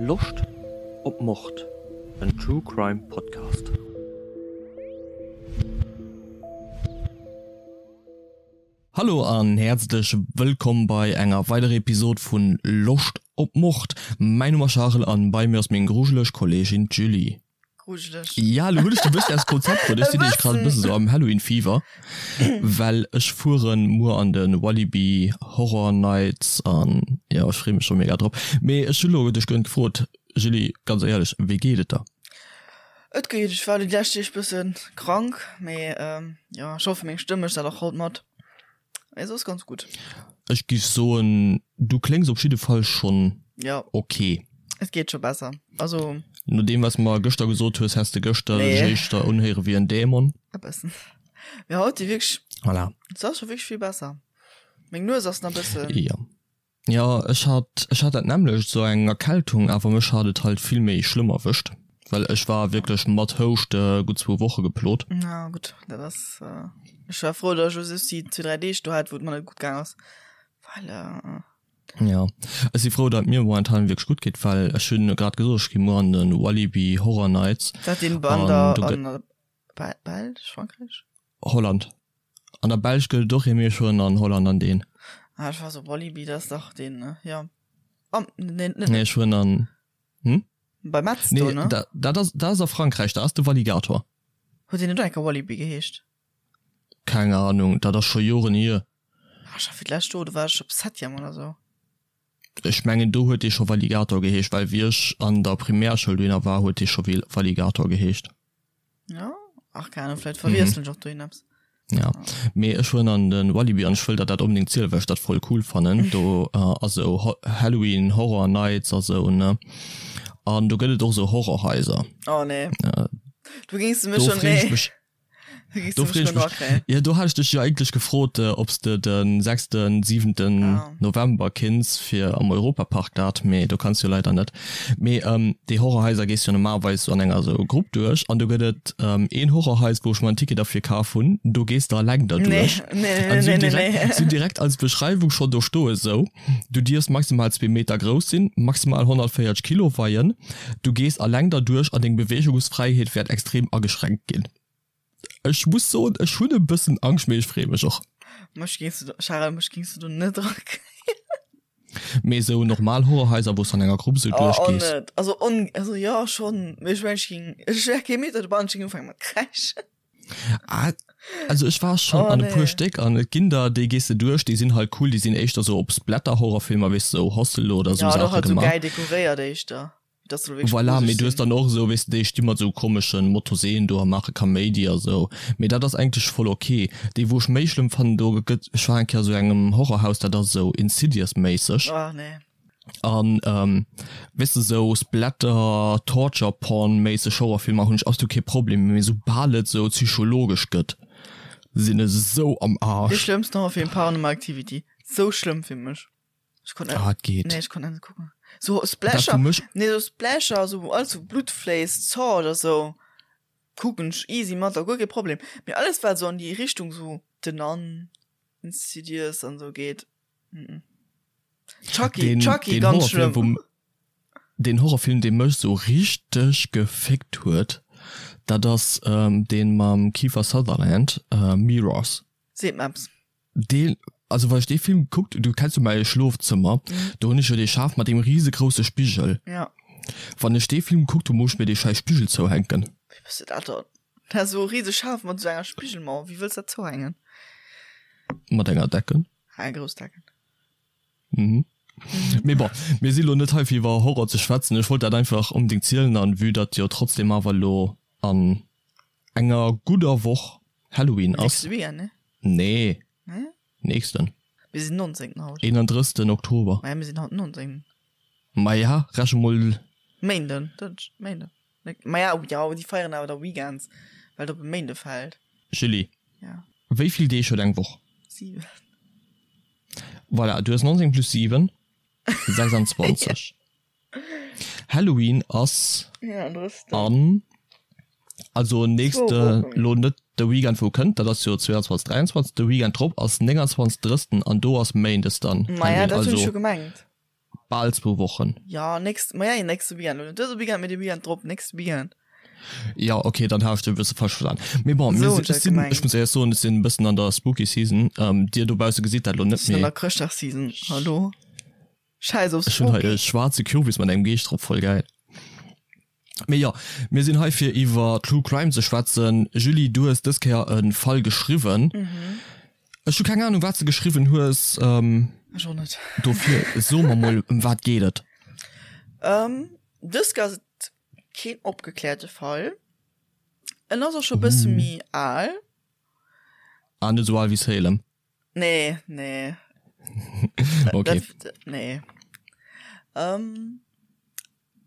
Loscht op Mord? En True Crime Podcast. Hallo an häerzlech wëllkomm bei enger weiderer Episode vun Loscht op Mord. Mäin Numm ass Charel an bei mir ass meng grujeleg Kolleegin d'Julie. Grujeleg. Ja, lo hunn ech dech e bëssen aus dem Konzept bruet. Ech sinn nämlech grad e bëssen esou am Halloween-Fever, well ech fueren muer an de Walibi Horror Nights an jo, ech freeë mech scho mega drop. Mee ech hu lo dech gënnt gefrot, Julie, ganz éierlech, wéi geet et der? Et geet. Ech war déi lescht Deeg bësse krank, mee jo, ech hoffe meng Stëmm mécht dat och haut mat. Mee soss ganz gutt. Ech giff soen, du kléngs op jidde Fall schonn Ja. ok. Et geet scho besser. Also. No deem wat s mer gëschter gesot hues, häss de gëschter Nee. dech éischter unhéiere wéi en Dämon. E bëssen. Mee haut si wierklech. Voilà. Et ass scho wierklech vill besser. Meng Nues ass nach e bëssen. Jo. Jo, ech hat, ech hat dat nämmlecht, esou eng Erkältung, awer mech hat et halt vill méi schlëmm erwëscht, well ech war wierklech mat Houschte gutt zwou Woche geplot. Na gutt, dat ass, ech war frou, datt ech just déi zwee, dräi Deeg do hat, wou et mer net gutt gaang ass, well. Jo, ech si frou, datt et mir momentan wierklech gutt geet, well ech hunn grad gesot, ech gi muer an de Walibi Horror Nights. Dat deen an der, an der Belsch, Frankräich? Holland. An der Belsch gëtt et och ee, mee ech fueren an Holland an deen. Ah, ech war sou, Walibi, dat ass dach deen, ne? Jo. Am, nee, net. Nee, ech fueren an, hm? Bei Metz do, Nee, ne? dat, dat ass, dat ass a Frankräich, dat ass de Walligator. Huet deen net och eng Kéier Walibi geheescht? Keng Ahnung, dat ass scho Joren hier. Ah, ech war fir d'lescht do, do war ech op Septième oder sou. Ech mengen, do huet dee scho Walligator geheescht, well wéi ech an der Primärschoul dohinner war, huet dee scho Walligator geheescht. Ja, ach keine Ahnung, vielleicht verwiesseln ech och dohin eppes. Ja, mee ech fueren an den Walibi an ech wëll der dat onbedéngt zielen, well ech dat voll cool fannen. Do ass esou Halloween Horror Nights a sou, ne? An do gëtt et och esou Horrorhaiser. Oh nee. Du géings du mech Do schon, freen ech nee. mech. Du géings Do du mech freen ech schon mech. drakréien. Jo, do hat ech dech jo eigentlech gefrot, ob s de den sechsten, siwenten Ah. November kinns fir am Europapark dat, mee do kanns jo leider net. Mee déi Horrorhaiser gees jo normalerweis sou an enger sou Grupp duerch an do gëtt et een Horrorhais wou ech mer en Ticket derfir kaf hunn, do gees de alleng derduerch. Nee, nee, An nee, si nee, nee, direkt, nee. si direkt als Beschreiwung schonn do stoe sou, du dierfs maximal zwee Meter grouss sinn, maximal 140 Kilo weien, du gees alleng derduerch an deng Beweegungsfräiheet wäert extrem ageschränkt ginn. Ech muss soen, ech hunn e bëssen Angscht, mee ech freeë mech och. Mech géings du, Charel, mech géings du do net drakréien. Mee esou normal Horrorhaiser, wou s du an enger Grupp esou Oh, och duerchgees. net. Also, on, also jo, schonn, mee ech mengen, ech géing, ech wär kee Meter dobannen, ech géing ufänke mat kräischen. Ah, also ech war schonn Oh, an e puer nee. Stéck an et ginn der, déi gees de duerch, déi sinn halt cool, déi sinn éischter esou op Splatter-Horrorfilmer, weess de, esou Hostel oder esou Ja, an och Saache halt esou gemaach. gäil dekoréiert éischter. Dass soll wierklech Voilà, mee gruseleg du hues sinn. dann och esou, weess de, déi sti mat esou komeschen Motorseen do a maache Kaméidi a sou. Mee dat ass eigentlech voll ok. Déi wou ech méi schlëmm fannen, do gëtt, ech war eng Kéier a sou engem Horrorhaus, dat ass esou Insidious-méisseg. Oh nee. An weess de, esou Splatter, Torture Porn-méisseg Horrorfilmer hunn ech absolut kee Problem, mee soubal et esou psychologesch gëtt, sinn ech esou am Dee Arsch. schlëmmsten Horrorfilm, Paranormal Activity. Sou schlëmm fir mech. Ech konnt net, Ah, et geet. nee, ech konnt net kucken. So Dat Splasher, wou mech nee, so Splasher, so wou alles so Blut fléisst, Saw oder so, kucken ech easy mat, a guer kee Problem. Mee alles wat so an déi Richtung so The Nun, Insidious an so geet, mm. Chucky, den, Chucky, den ganz Horrorfilm, schlëmm. wou den Horrorfilm, dee mech sou richteg geféckt huet, dat ass ähm, deen mam Kiefer Sutherland, äh, Mirrors. Seet mer eppes. Deen, also wann ech dee Film gekuckt, du kenns jo mäi Schlofzëmmer, do hunn ech jo dee Schaf mat deem risegrousse Spigel. Ja. Wann ech dee Film gekuckt hunn, muss ech mir dee schäiss Spigel zouhänken. Wéi bass de dat dann? Dat ass esou e riseg Schaf mat esou enger Spigelmauer, wéi wëlls dat zouhängen? Mat enger Decken. Ah, eng grouss Decken. Mhm. Mee bon, mir si lo net hei fir iwwer Horror ze schwätzen. Ech wollt dat einfach onbedéngt zielen an vue datt jo trotzdem awer elo an enger gudder Woch Halloween ass. Nächste Weekend, ne? Nee. Nee? Nächsten. Mir sinn 19. haut. 31. Oktober. Maja, mir sinn haut 19. Maja, reche mol. Méinden, Dënsch, Méinden. Maja, jo, déi feieren awer da Weekends, well et op e Méinde fält. Julie. Ja. Wéi vill Deeg huet eng Woch? 7. Voilà, du hues 19 plus 7, 26. Halloween ass an also nächste lo net de Weekend wou kënnt, dat ass jo 22 23, de Weekend drop ass 29 30 an do ass Méindes dann Maja, Halloween dat hunn ech also jo gemengt. Bal zwou Wochen. Ja, nächst, ma ja, nächste Weekend. Net dëse Weekend, mee de Weekend drop, nächste Weekend. Ja, okay, dann hat ech dech e bësse falsch verstan. Mee bon, mir sinn, ech sinn, ech muss éierlech soen, ech sinn e bëssen an der Spooky Season. Dir dobausse gesitt dat elo net, Ech sinn an der Chrëschtdagsseason, hallo? Scheiß op Ech hunn hei e schwaarze Kürbis mat engem Geescht drop, voll gäil. Mee jo, mir sinn hei fir iwwer True Crime ze schwätzen. Julie, du hues dës Kéier e Fall geschriwwen. Ech hu keng Anung wat s de geschriwwen hues. Ech och net. Dofir so mer mol, ëm wat geet et? Dës Kéier ass et keen opgekläerte Fall. En ass och scho bësse méi al. Ah, net esou al wéi Salem? Nee, nee. Okay. Dat, nee. Ähm,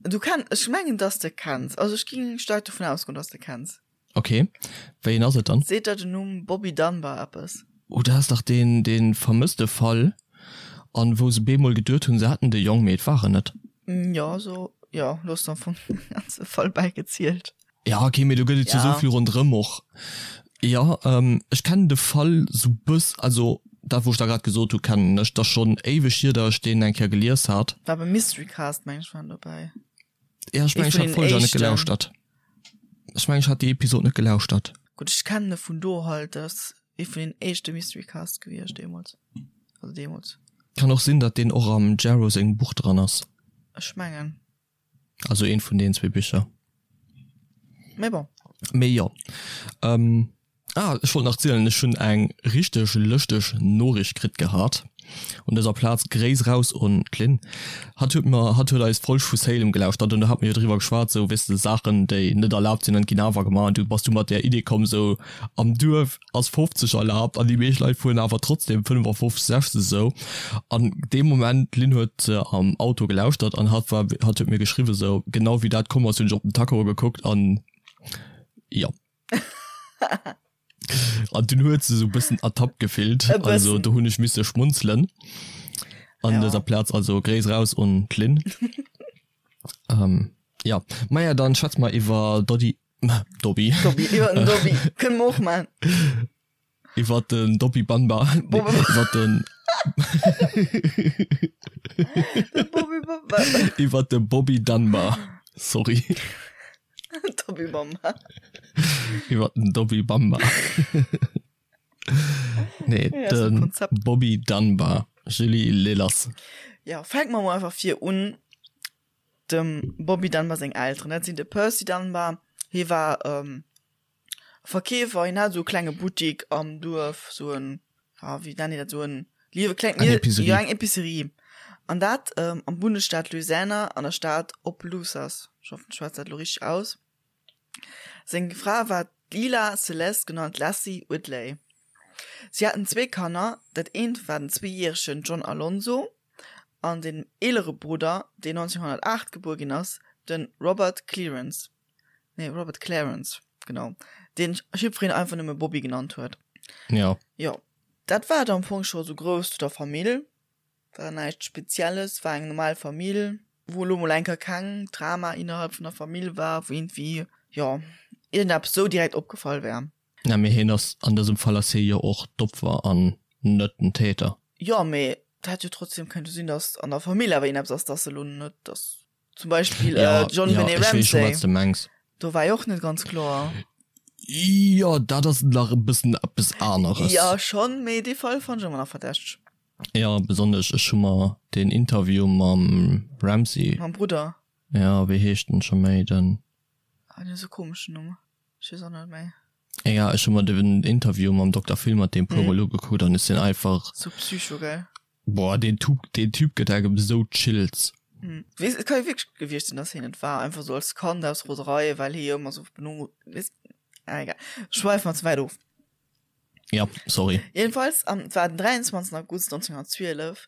du kenn, ech mengen, dass de kenns. Also ech ging staark dovun ausgoen, dass de kenns. Okay. Wéi een ass et dann? Seet der den Numm Bobby Dunbar eppes? Oh, dat ass dach deen, dee vermësste Fall, an wou se bemol geduet hunn, se hätten de Jong, mee et war en net. Jo, sou, jo, lo hues de am Fong den ganze Fall bäigezielt. Ja, okay, mee do gëtt et jo sou vill ronderëm och. Jo, ech kennen de Fall sou bëss, also dat wou ech der grad gesot hu kennen ech, 't ass schonn éiweg hier, datt ech deen eng Kéier gelies hat. War beim Mystery Cast, meng ech, war en dobäi. Ja, ech mengen ech hat d'Folg awer net gelauschtert. Ech mengen ech hat déi Episod net gelauschtert. Gutt, ech kennen e vun do halt, dat ass ee vun den éischte Mystery Cast gewiescht deemools, also deemools. Kann och sinn, datt deen och am Jarrow sengem Buch dran ass. Ech mengen. Also eent vun deenen zwee Bicher. Mee bon. Mee jo. Ähm, ah, ech wollt nach zielen, ech hunn eng richteg lëschteg Noriicht kritt gehat. Un dëser Plaz Gréiss raus un d'Lynn. Hatt huet mer, hatt huet eis Folg vu Salem gelauschtert an do hat mer jo driwwer geschwat, sou, weess de, Saachen, déi net erlaabt sinn an ginn awer gemaach. An du bass du mat där Idee komm, sou am Duerf ass 50 erlaabt an déi meescht Leit fueren awer trotzdem 55, 60 esou. An dee Moment, d'Lynn huet am Auto gelauschtert an hatt war, hatt huet mir geschriwwen esou, genau wéi dat komm ass, hunn ech op den Tacho gekuckt an jo. An dunn huet se esou e bëssen ertappt gefillt, E also bëssen. do hunn ech misse schmunzelen an Ja. dëser Plaz, also Gréiss raus un d'Lynn. Jo, maja dann schwätze mer iwwer Doddy Dobby. Dobby, iwwer den Dobby. Kënne mer och man. Iwwer den Dobby Bamba. Nee, iwwer den. De Bobby Bamba. Iwwer de Bobby Dunbar. Sorry. Dobby Bamba. Iwwer den Dobby Bamba. Nee, Ja, ass e den Konzept. Bobby Dunbar. Julie Lillers. Ja, fänke mer mol einfach vir un. Dem Bobby Dunbar seng Elteren, dat sinn de Percy Dunbar, hie war Verkeefer, hien hat esou e klenge Buttik am Duerf, esou en, ja wéi nennen déi dat, esou en liewe kleng, Eng Epicerie. jo eng Epicerie, an dat am Bundesstaat Louisiana an der Stad Opelousas, ech hoffen ech schwätz dat elo richteg aus. Seng Fra war d'Lila Celeste, genannt Lassie Whitley. Si haten zwee Kanner, dat eent war den zweejäregen John Alonzo an den eelere Brudder, deen 1908 gebuer ginn ass, de Robert Clearance, nee Robert Clarence, genau, deen jiddwereen einfach nëmme Bobby genannt huet. Jo. Jo, dat war et am Fong scho sou grouss zu der Famill. War näischt Spezielles, war eng normal Famill, wou elo mol eng Kéier keng Drama innerhalb vun der Famill war, wou iergendwéi, jo, iergendeppes sou direkt opgefall wär. Na mee hien ass, an dësem Fall ass hie jo och d'Opfer an net den Täter. Jo, mee et hätt jo trotzdem könnte sinn, datt an der Famill awer iergendeppes ass, datt elo net, datt zum Beispill Ja, d'Jon ja, Benet ech weess scho Ramsey, wat s de mengs. do war jo och net ganz kloer. Jo, dat ass nach e bëssen eppes aneres. Jo, schonn, mee dee Fall fannt ech ëmmer nach verdächteg. Jo, besonnesch ech hu mer deen Interview mam Ramsey. Mam Brudder. Jo, wéi heescht en scho méi, den. Ah, deen huet esou e komeschen Numm. Ech weess och net méi. Egal, ech hu mer den Interview mam Dokter Phil mat deem puer mol ugekuckt an ech sinn einfach. Sou psycho, gell? Boah, deen Tup, deen Typ gëtt engem sou Chills. Weess, et ka jo wierklech gewiescht sinn, dass hien et war, einfach sou als Kand aus Roserei, well hie jo ëmmer sou beno, weess, ah egal, schweife mer ze wäit of. Ja, sorry. Jedenfalls, am, et war den 23 August 1912,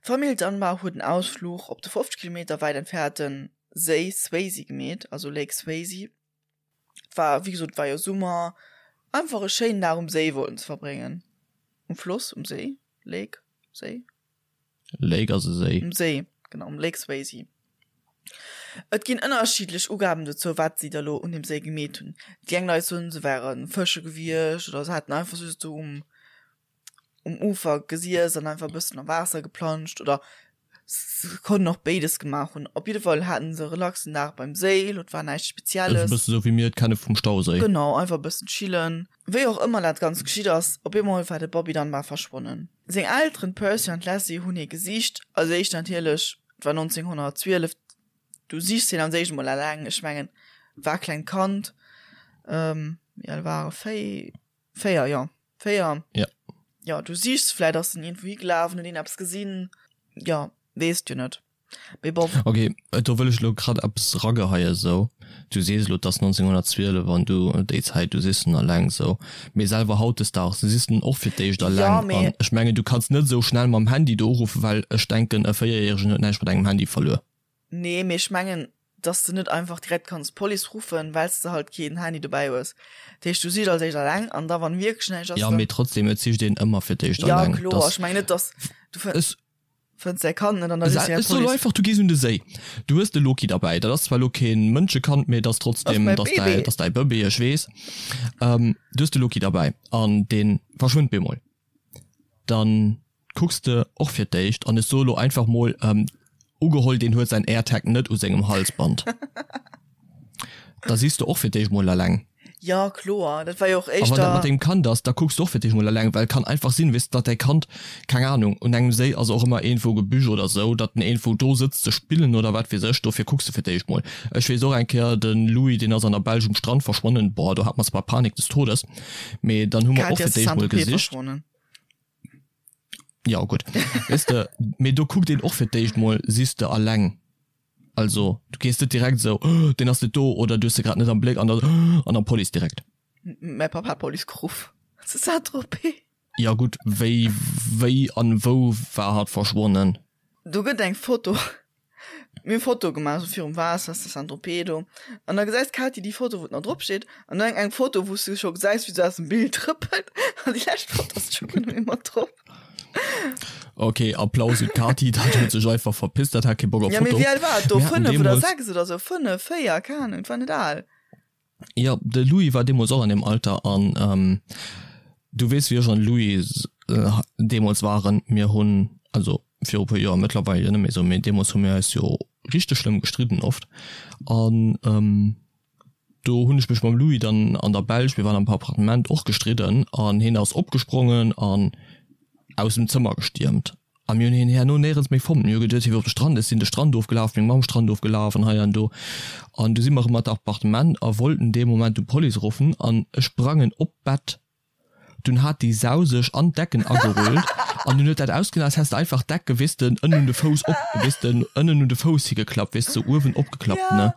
d'Famill Dunbar huet en Ausfluch op de 50 Kilometer wäit entfernte Séi Swayze gemeet, also Lake Swayze. Et war, wéi gesot, et war jo Summer, einfach e schéinen Dag um Séi wollten se verbréngen. Um Floss, um Séi, Lake, Séi? Lake ass e Séi. Um Séi, genau, um Lake Swayze. Et ginn ënnerschiddlech Ugaben dozou, wat si da lo un deem Séi gemeet hunn. Déi eng Leit soen, se wäre fësche gewiescht oder se hätten einfach just do um um Ufer gesiess an einfach e bëssen am Waasser geplanscht oder. Se konnten och béides gemaach hunn. Op jidde Fall haten se e relaxen Dag beim Séi, et war näischt Spezielles. E bësse sou wéi mir et kenne vum Stauséi. Genau, einfach e bëssen chillen. Wéi och ëmmer dat Ganzt geschitt ass, op eemol war de Bobby Dunbar verschwonnen. Seng Elteren, d'Percy an d'Leslie, hunn hie gesicht. Als éischt natierlech, et war 1912, du sichs hien als éischt emol eleng. Ech mengen, et war e klengt Kand, wéi al war e? 4, jo. 4. Ja. Ja, du sichs, vläit ass en iergendwou higelaf an huet een eppes gesinn. Ja, weess du net. Mee bon. Ok, do wëll ech elo grad eppes erageheien esou. Du sees elo, et ass 1912 an du, déi Zäit, du sichs en eleng esou. Mee selwer hautdesdaags sichs en och fir d'éischt eleng. Ja, mee. An ech mengen, du kanns net esou schnell mam Handy do uruffen, well ech denken, e Véierjäregen huet näischt mat engem Handy verluer. Nee, mee ech mengen, dass de net einfach direkt kanns d'Police ruffen, well s de halt keen Handy dobäi hues. Dat heescht, du sichs als éischt alleng an da wann wierklech näischt ass, Ja, mee trotzdem, et sicht een ëmmer fir d'éischt alleng. Ja, kloer. Ech mengen net, dass du fënns däi Kand net an da riffs direkt d'Police. Ech soen einfach, du gees un de Séi, du hues de Loki derbäi. Dat ass zwar elo kee Mënschekand, mee et ass trotzdem, et ass däi, et ass däi Bëbee, ech weess. Du hues de Loki derbäi an dee verschwënnt bemol. Dann kucks de och fir d'éischt, an ech soe lo einfach mol, ugeholl deen huet säin AirTag net u sengem Halsband, da sichs de och fir d'éischt mol eleng. Jo kloer, dat war jo och A wann dat éischter. mat dengem Kand ass, da kucks de och fir d'éischt mol eleng, well et kann einfach sinn, weess de, datt däi Kand, keng Ahnung, un engem Séi ass och ëmmer iergendwou Gebüsch oder sou, datt en iergendwou do sëtzt ze spillen oder wat weess ech, dofir kucks de fir d'éischt mol. Ech weess och eng Kéier, de Louis, deen ass an der Belsch um Strand verschwonnen, boah, do hat mer zwar Panik des Todes, mee dann hu mer och D'Katy fir ass zu d'éischt mol Saint-Tropez gesicht. verschwonnen. Ja gutt, weess de, mee do kuckt een och fir d'éischt mol, sichs de alleng, also du gees net direkt esou, oh, deen ass net do oder du hues se grad net am Bléck an dann, oh, an dann Police direkt. Mäi Papp hat d'Police geruff zu Saint-Tropez. Ja gutt, wéi, wéi an wou war hatt verschwonnen? Do gëtt eng Foto Mir hu Foto gemaach sou virum Waasser zu Saint-Tropez do an da gesäis d'Katy déi Foto wou et nach drop steet an dann eng Foto wou s du scho gesäis wéi se aus dem Bild trëppelt an déi lescht Foto ass scho guer net méi mat drop. Ok, Applaus un d'Katy, dat huet sech einfach verpisst, dat hat kee Bock op Ja mee Foto. wéi al war et do? Mir haten 5 oder deemools. 6 oder sou? 5, 4, keng Ahnung, et war net al. Jo, de Louis war deemools och an deem Alter an du weess wéi ech an de Louis deemools waren. Mir hunn, also viru e puer Joer, mëttlerweil jo net méi esou, mee deemools hu mir eis jo richteg schlëmm gestridden oft an do hunn ech mech mam Louis dann an der Belsch, mir waren am Appartement, och gestridden an hien ass opgesprongen an aus dem Zëmmer gestiermt a mir hunn hien herno néierens méi fonnt. Mir hu geduet, hie wier op de Strand. Ech sinn de Strand ofgelaf, meng Mamm Strand ofgelaf an hei an do. An du si mer erëm an d'Appartement a wollten dee Moment du Police ruffen an ech sprangen op d'Bett. Dunn hat déi Sau sech an d'Decken agerullt an dunn huet dat ausgesinn, als häss de einfach d'Decke, weess de, ënnen un de Fouss op, weess de, ënnen un de Fouss higeklappt, weess de, sou uewen opgeklappt, ne.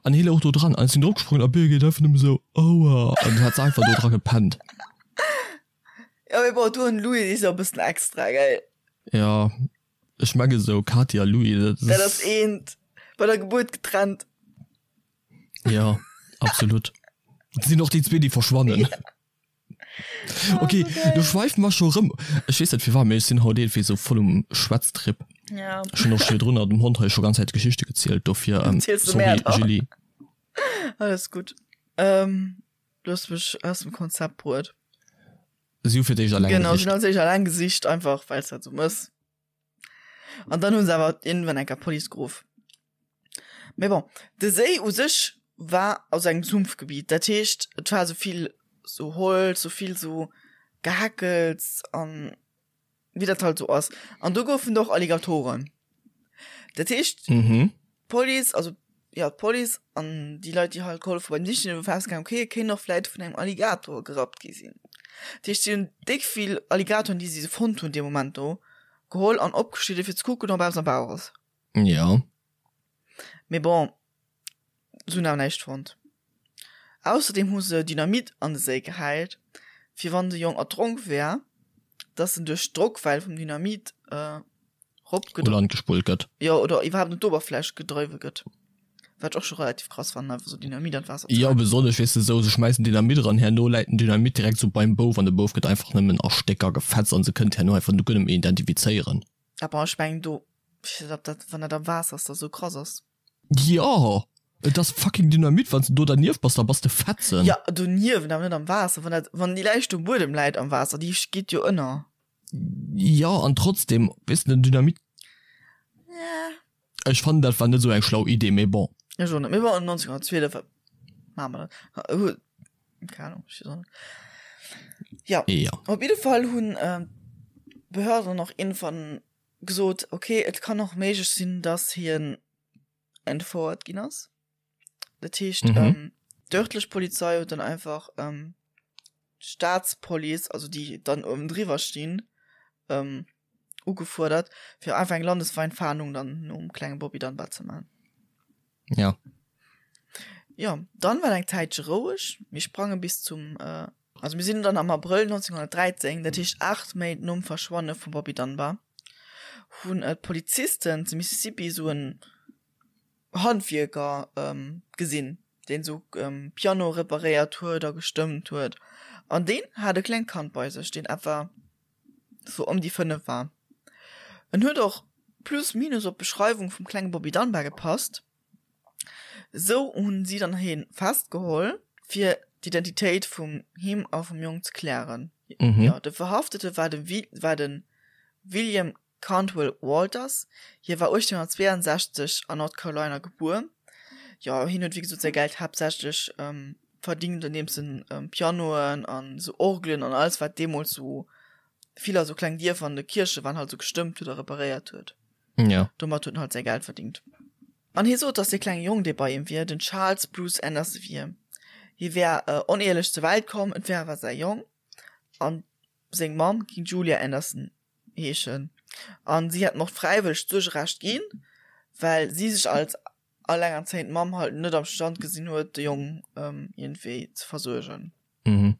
An hie louch do dran an ech sinn dropgesprongen a Birgit einfach nëmme sou, Aua! An du hat se einfach do dra gepennt. Ja, mee bon, du an Louis si jo e bëssen extra, gell? Ja, ech menge sou Katy a Louis, dat ass. Dat ass eent, bei der Gebuert getrennt. Ja, absolut. Dat sinn och déi zwee, déi verschwannen. Ja. Okay, du schweife mer scho rëm. Ech weess net firwat, mee ech sinn haut iergendwéi sou voll um Schwätztrip. Ja. Ech hunn och scho virdrun dem Hond hei scho ganz Zäit Geschichte gezielt, dofir, ähm, sorry, Julie. Alles gutt. Ähm. Du hues mech aus dem Konzept bruet. Si hu fir d'éischt alleng Genau, si hunn als éischt alleng gesicht, einfach well s dat sou mëss. An dann hu se awer iergendwann eng Kéier d'Police geruff. Mee bon, de Séi u sech war aus engem Sumpfgebiet, dat heescht et war sou vill sou Holz, sou vill sou Gehackels an wéi dat halt sou ass. An do goufen et och Alligatoren. Dat heescht, d'Police, also jo d'Police an déi Leit, déi halt gehollef hu beim Sichen, hu festgehalen, okay, e kéint och vläit vun engem Alligator gerappt gi sinn. Dat heescht, si hunn déck vill Alligatoren, déi si fonnt hunn dee Moment do, geholl an opgeschnidde fir ze kucken, ob eppes am Bauch ass. Jo. Mee bon, se hunn awer näischt fonnt. Ausserdeem hu se Dynamit an de Séi gehäit, fir wann de Jong erdronk wär, dass en duerch d'Drockwell vum Dynamit U Land gespullt gëtt. Jo, oder iwwerhaapt un d'Oberfläch gedriwwe gëtt. Wat ech och scho relativ krass fannen, einfach sou Dynamit an d'Waasser ze Jo, besonnesch, weess de, sou se schmäissen Dynamit eran, herno läit den Dynamit direkt sou beim Bouf an de Bouf gëtt einfach nëmmen a Stécker gefetzt an se kënnt herno einfach guer net méi identifizéieren. Ah bon, ech mengen do, ech weess net, ob dat, wann dat am Waasser ass, da sou krass ass. Jo, et ass fucking Dynamit, wann s de do dernieft bass, da bass de fetzen. Jo, doniewent, awer net am Waasser. Wann dat, wann déi Läich um Buedem läit am Waasser, déi geet jo ënner. Jo, an trotzdem, weess de, den Dynamit. Ech fannen dat war net esou eng schlau Idee, mee bon. Ech och net, mee bon 1912 wat maache mer dann? Keng Ahnung, ech weess och net. Jo, Jo. op jidde Fall hunn d'Behörden och iergendwann gesot, okay, et kann och méiglech sinn, dass hien entfouert ginn ass. Dat heescht, mhm. ähm, d'örtlech Polizei huet dann einfach ähm, d'Staatspolice, also déi dann oben driwwer stinn, ähm, ugefuerdert, fir einfach eng landesweit Fahndung dann nom klenge Bobby Dunbar ze man. Ja. Ja, dann war eng Zäitche roueg. Mir sprange bis zum äh, also mir sinn dann am Abrëll 1913, dat heescht 8 Méint nom Verschwanne vum Bobby Dunbar, hunn äh, d'Polizisten zu Mississippi sou en Handwierker gesinn, deen sou Piano reparéiert huet a gestëmmt huet. An deen hat e klengt Kand bei sech, deen etwa sou ëm déi 5 war. En huet och plus minus op d'Beschreiwung vum klenge Bobby Dunbar gepasst. Sou hunn si dann hien festgeholl, fir d'Identitéit vum him a vum Jong ze klären. Jo, de Verhaftete war de war de William Cantwell Walters, Hie war 1862 an North Carolina gebuer. Jo, hien huet wéi gesot säi Geld haaptsächlech verdingt andeems en Pianoen an esou Orgelen an alles wat deemools esou vill a sou kleng Dierfer an de Kierche waren halt esou gestëmmt huet a reparéiert huet. Jo. Domat huet en halt säi Geld verdingt. An hie sot, datt dee klenge Jong dee bei him wier, den Charles Bruce Anderson wier. Hie wär oneehelech zur Welt komm, et wär awer säi Jong an seng Mamm géing Julia Anderson heeschen an si hätten och fräiwëlleg d'Suergerecht ginn, well si sech als allengerzéiend Mamm halt net am Stand gesinn huet, de Jong iergendwéi ze versuergen. Mhm.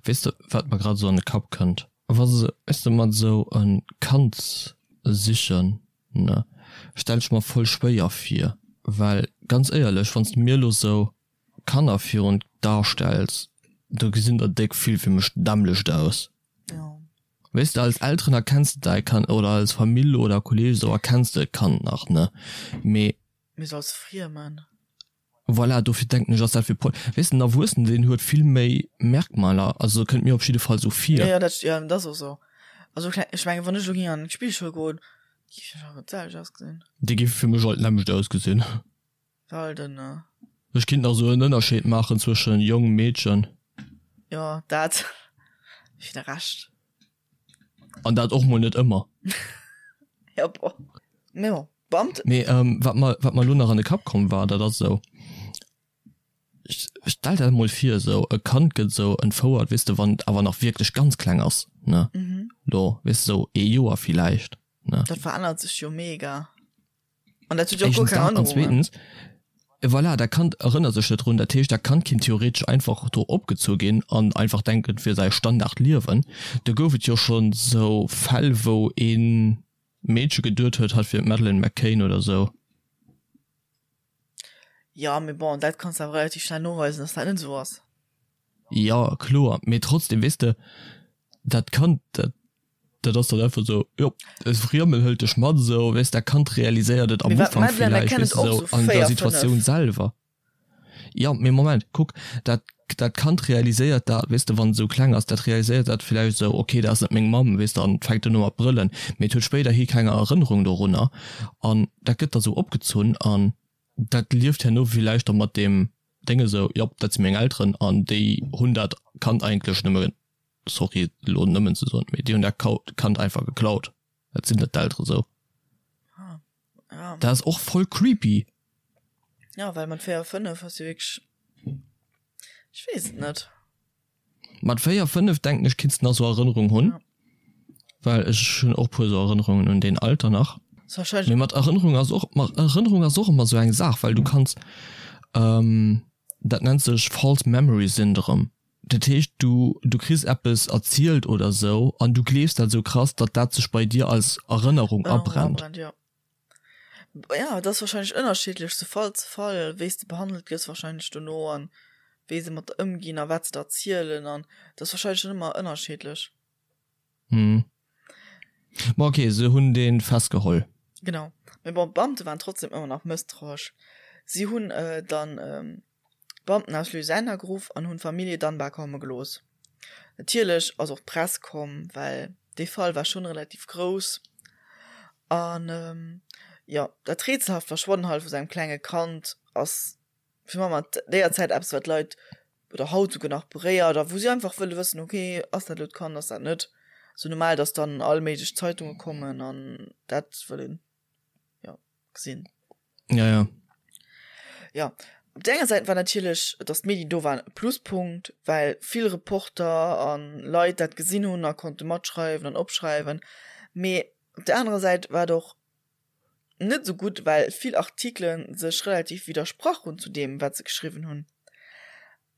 Weess de, wat mer grad esou an de Kapp kënnt? Wa se, weess de, mat esou e Kand sichen, ne, stell ech mer voll schwéier vir, well ganz éierlech, wann s de mir elo esou Kanner virun d'A stells, do gesinn der déck vill fir mech dämmlecht aus. Ja. Weess de, als Elteren erkenns de däi Kand, oder als Famill oder Kolleg esou erkenns de d'Kand nach, ne? Mee. Mee sou als Friemen. Voilà, dofir denken ech, ass dat fir Pol. Weess de, en Erwuessenen, deen huet vill méi Merkmaler, also kënnt mir op jidde Fall sou vir. Jo, jo, dat, jo, dat ass och sou. Also kleng, ech mengen, wann ech elo géing an d'Spillschoul goen, géif ech awer d'selwecht ausgesinn. Déi géife fir mech all d'nämmlecht ausgesinn. Well den. Ech kinnt nach sou en Ënnerscheed maachen zwëschen Jong, Meedchen. Jo, dat fir de Rescht. An dat och mol net ëmmer. Jo, bon. Mee bon, d'Beamten. Mee wat mer, wat mer elo nach an de Kapp komm war, dat ass esou, stell der mol vir esou e Kand gëtt esou entfouert, weess de, wann et awer nach wierklech ganz kleng ass, ne, lo, weess de, sou ee Joer villäicht, ne. Dat verännert sech jo mega. An dat huet jo och guer Éischtens keng dat an Erënnerungen. zweetens, voilà, dat Kand erënnert sech net drun. Dat heescht, dat Kand kinnt theoretesch einfach do opgezu ginn an einfach denken, et wier säi Standardliewen. Do gouf et jo schonn sou Fäll, wou ee Meedche geduet huet, hatt wier d'Madeleine McCann oder sou. Jo, mee bon, dat kanns de awer relativ schnell noweisen, dass dat net esou ass. Jo, kloer, mee trotzdem, weess de, dat Kand, dat Dat ass dann einfach esou, jo, e Friemel hëlt dech mat esou, weess, dat Kand realiséiert et am Mee wat Ufank d'Madeleine villäicht, McCann weess et och de, sou esou an der 4, 5. Situatioun selwer. Jo, mee Moment, kuck, dat, dat Kand realiséiert dat, weess de, wann et esou kleng ass, dat realiséiert dat villäicht esou, okay, dat ass net meng Mamm, weess de, an fänkt un mat brëllen, mee et huet spéiderhi keng Erënnerung dorunner an dat gëtt da sou opgezunn an dat lieft herno villäicht da mat deem Déng esou, jop, dat si meng Elteren an déi hunn dat Kand eigentlech nëmme sorry elo nëmmen ze soen, mee déi hunn dat Kand einfach geklaut. Dat sinn net d'Eltere sou. Ah, ja. Dat ass och voll creepy. Ja, well mat 4, 5 ass jo wierklech, ech weess et net. Mat 4, 5 denken ech kinns de nach sou Erënnerung hunn. Ja. Well ech hunn och puer sou Erënnerungen un deen Alter nach. Ass wahrscheinlech. Mee mat Erënnerung ass och, mat Erënnerung ass och ëmmer sou eng Saach, well du kanns, dat nennt sech False Memory Syndrome. Dat heescht, du, du kriss eppes erzielt oder sou an du gleefs dat sou krass, datt dat sech bei dir als Erënnerung Erënnerung abrennt. abrennt, jo. Ja, et ass wahrscheinlech ënnerschiddlech zu Fall zu Fall, wéi s de behandelt gëss wahrscheinlech dono an wéi se mat der ëmginn a wat se der erzielen an et ass wahrscheinlech dann ëmmer ënnerschiddlech. Hm. Ma okay, se hunn dee festgeholl. Genau. Mee bon, d'Beamte waren trotzdem ëmmer nach mësstrauesch. Si hunn dann d'Beamten aus Louisiana geruff an hunn d'Famillje Dunbar komme gelooss. Natierlech ass och d'Press komm, well dee Fall war schonn relativ grouss. An. Jo, dat rätselhaft Verschwannen halt vu sengem klenge Kand ass fir Mamm an déier Zäit eppes, wat d'Leit oder haut souguer nach beréiert a wou si einfach wëlle wëssen, okay, ass dat elo d'Kand, ass dat net? Sou normal, dass dann all méiglech Zeitunge kommen an dat wëllen, jo, gesinn. Ja, ja. Ja, op der enger Säit war natierlech, dass d'Medien do waren, e Pluspunkt, well vill Reporter a Leit dat gesinn hunn a konnte matschreiwen an opschreiwen. Mee op der anerer Säit war et och net esou gutt, well vill Artikele sech relativ widdersprach hunn zu deem, wat se geschriwwen hunn.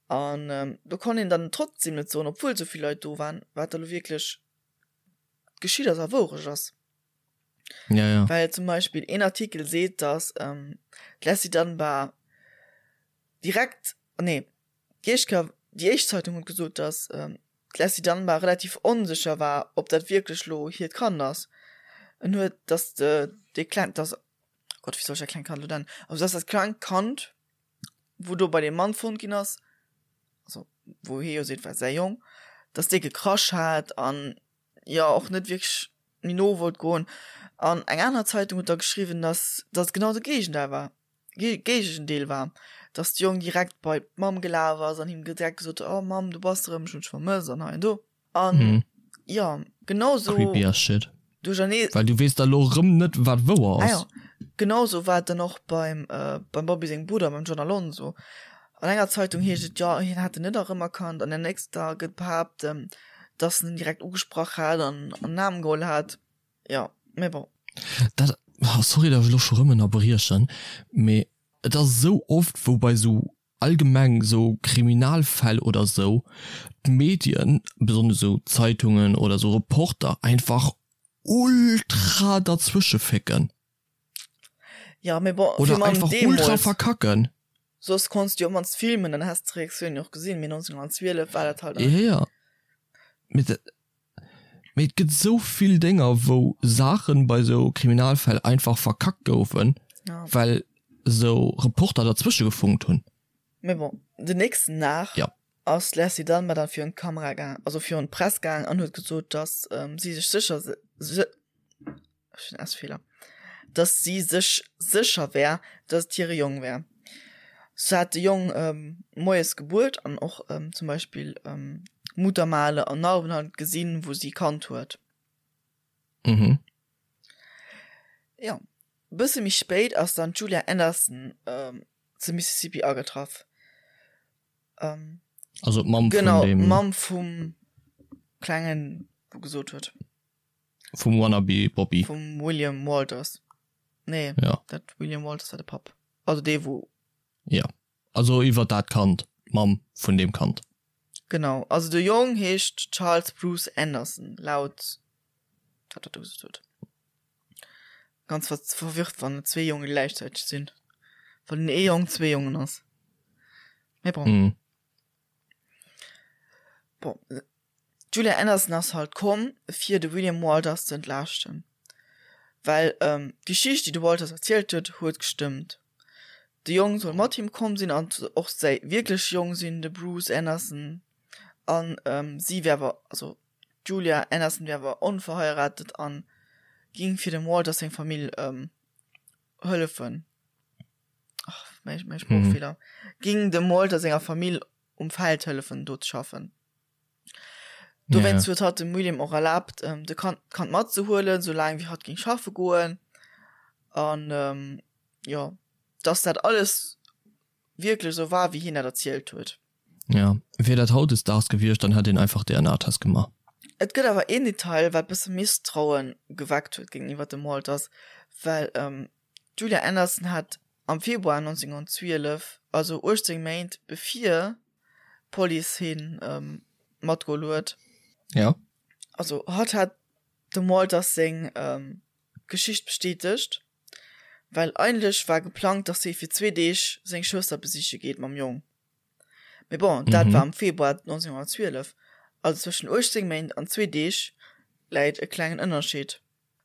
An do konnt een dann trotzdem net soen, obwuel esou vill Leit do waren, wat da lo wierklech geschitt ass a Wourecht ass. Ja, ja. Well zum Beispill een Artikel seet, dass d'Leslie Dunbar direkt, nee, déi éischt Kéier, déi éischt Zeitung huet gesot, dass d'Leslie Dunbar relativ onsécher war, ob dat wierklech lo hiert Kand ass. En huet, dass de, dee kleng, dass, oh Gott, wéi soll ech dat klengt Kand lo nennen? Also dass dat klengt Kand, wou do bei deem Mann fonnt ginn ass, also wou hie jo seet, war säi Jong, dass dee gekrasch hat an jo och net wierklech méi no wollt goen. An eng aner Zeitung huet da geschriwwen, dass dass et genau de Géigendeel war, Géigendeel war, dass de Jong direkt bei d'Mamm gelaf ass an him direkt gesot huet, oh Mamm, du bass erëm, ech hunn dech vermësst an hei an do. An jo, genau sou. Creepy as shit. Duerchernee. Well du weess da lo rëm net, wat wouer ass. Ah jo, genau sou war et dann och beim, beim Bobby sengem Brudder, beim John Alonso. An enger Zeitung heescht et, jo, hien hätt en net erëmerkannt, an der nächster gëtt behaapt, dass en en direkt ugesprach hat an an den Aarm geholl hat. Jo, mee bon. Dat, sorry, datt ech elo scho rëm ënnerbriechen, mee et ass esou oft, wou bei esou allgemeng esou Kriminalfäll oder esou d'Medien, besonnesch esou Zeitungen oder esou Reporter einfach ultra derzwësche fécken. Ja, mee bon, oder einfach ultra verkacken. Soss konns du jo op mannst filmen, dann häss d'Reaktioun jo och gesinn, mee 1912 war dat halt. Ja, ja. Mee dat, mee et gëtt esou vill Dénger, wou Saachen bei esou Kriminalfäll einfach verkackt goufen, ja. well esou Reporter derzwësche gefunkt hunn. Mee bon, den nächsten Dag ja. ass d'Leslie Dunbar dann virun d'Kamera gaang, also virun d'Press gaang an huet gesot, dass ähm, si sech sécher se, ech hunn S-Feeler, dass si sech sécher wär, dass et hire Jong wär. Se hat de Jong ähm, moies gebuert an och ähm, zum Beispill ähm, Muttermale an Narben halt gesinn, wou si kannt huet. Mhm. Ja, bësse méi spéit ass dann d'Julia Anderson ähm, zu Mississippi agetraff. Ähm, also d'Mamm genau, vun dem. D'Mamm vum Klengen, wou gesot huet. Vum Wannabe Bobby. Vum William Walters. Nee, ja. dat William Walters war de Papp. Also dee wou. Ja, also iwwer dat Kand, d'Mamm vun deem Kand. Genau, also de Jong heescht Charles Bruce Anderson, laut wat dat do gesot huet. Ganz verwirrt, wann et zwee Jonge gläichzäiteg sinn. Wann den ee Jong zwee Jongen ass. Mee bon. Mm. Bon, D'Julia Anderson ass halt komm, fir de William Walters ze entlaaschten, well d'Geschicht, déi de Walters erzielt huet, huet gestëmmt. De Jong soll mat him komm sinn an och säi wierkleche Jong sinn, de Bruce Anderson, an si wär awer, also d'Julia Anderson wär awer onverheiratet a ging fir dem Walters seng Famill hëllefen, ach, mäi Sproochfeeler, ging dem Walter senger Famill um Feld hëllefen do ze schaffen. Dowéinst huet hatt dem William och erlaabt, de Kand, d'Kand matzehuelen, soulaang wéi hatt géing schaffe goen. An jo, dass dat alles wierklech esou war, wéi hien dat erzielt huet. Ja, wier dat hautdesdaags gewiescht, dann hätt een einfach DNA-Test gemaach. Et gëtt awer een Detail, wat bësse Misstrauen geweckt huet géintiwwer dem Walters, well d'Julia Anderson hat am Februar 1912, also 18 Méint bevir d'Police hien matgeholl huet. Ja. Also hatt hat dem Walters seng Geschicht bestätegt, well eigentlech war geplangt, dass hie fir zwee Deeg seng Schwëster besiche geet mam Jong. Mee bon, dat war am Februar 1912, also zwëschen 18 Méint an zwee Deeg läit e klengen Ënnerscheed.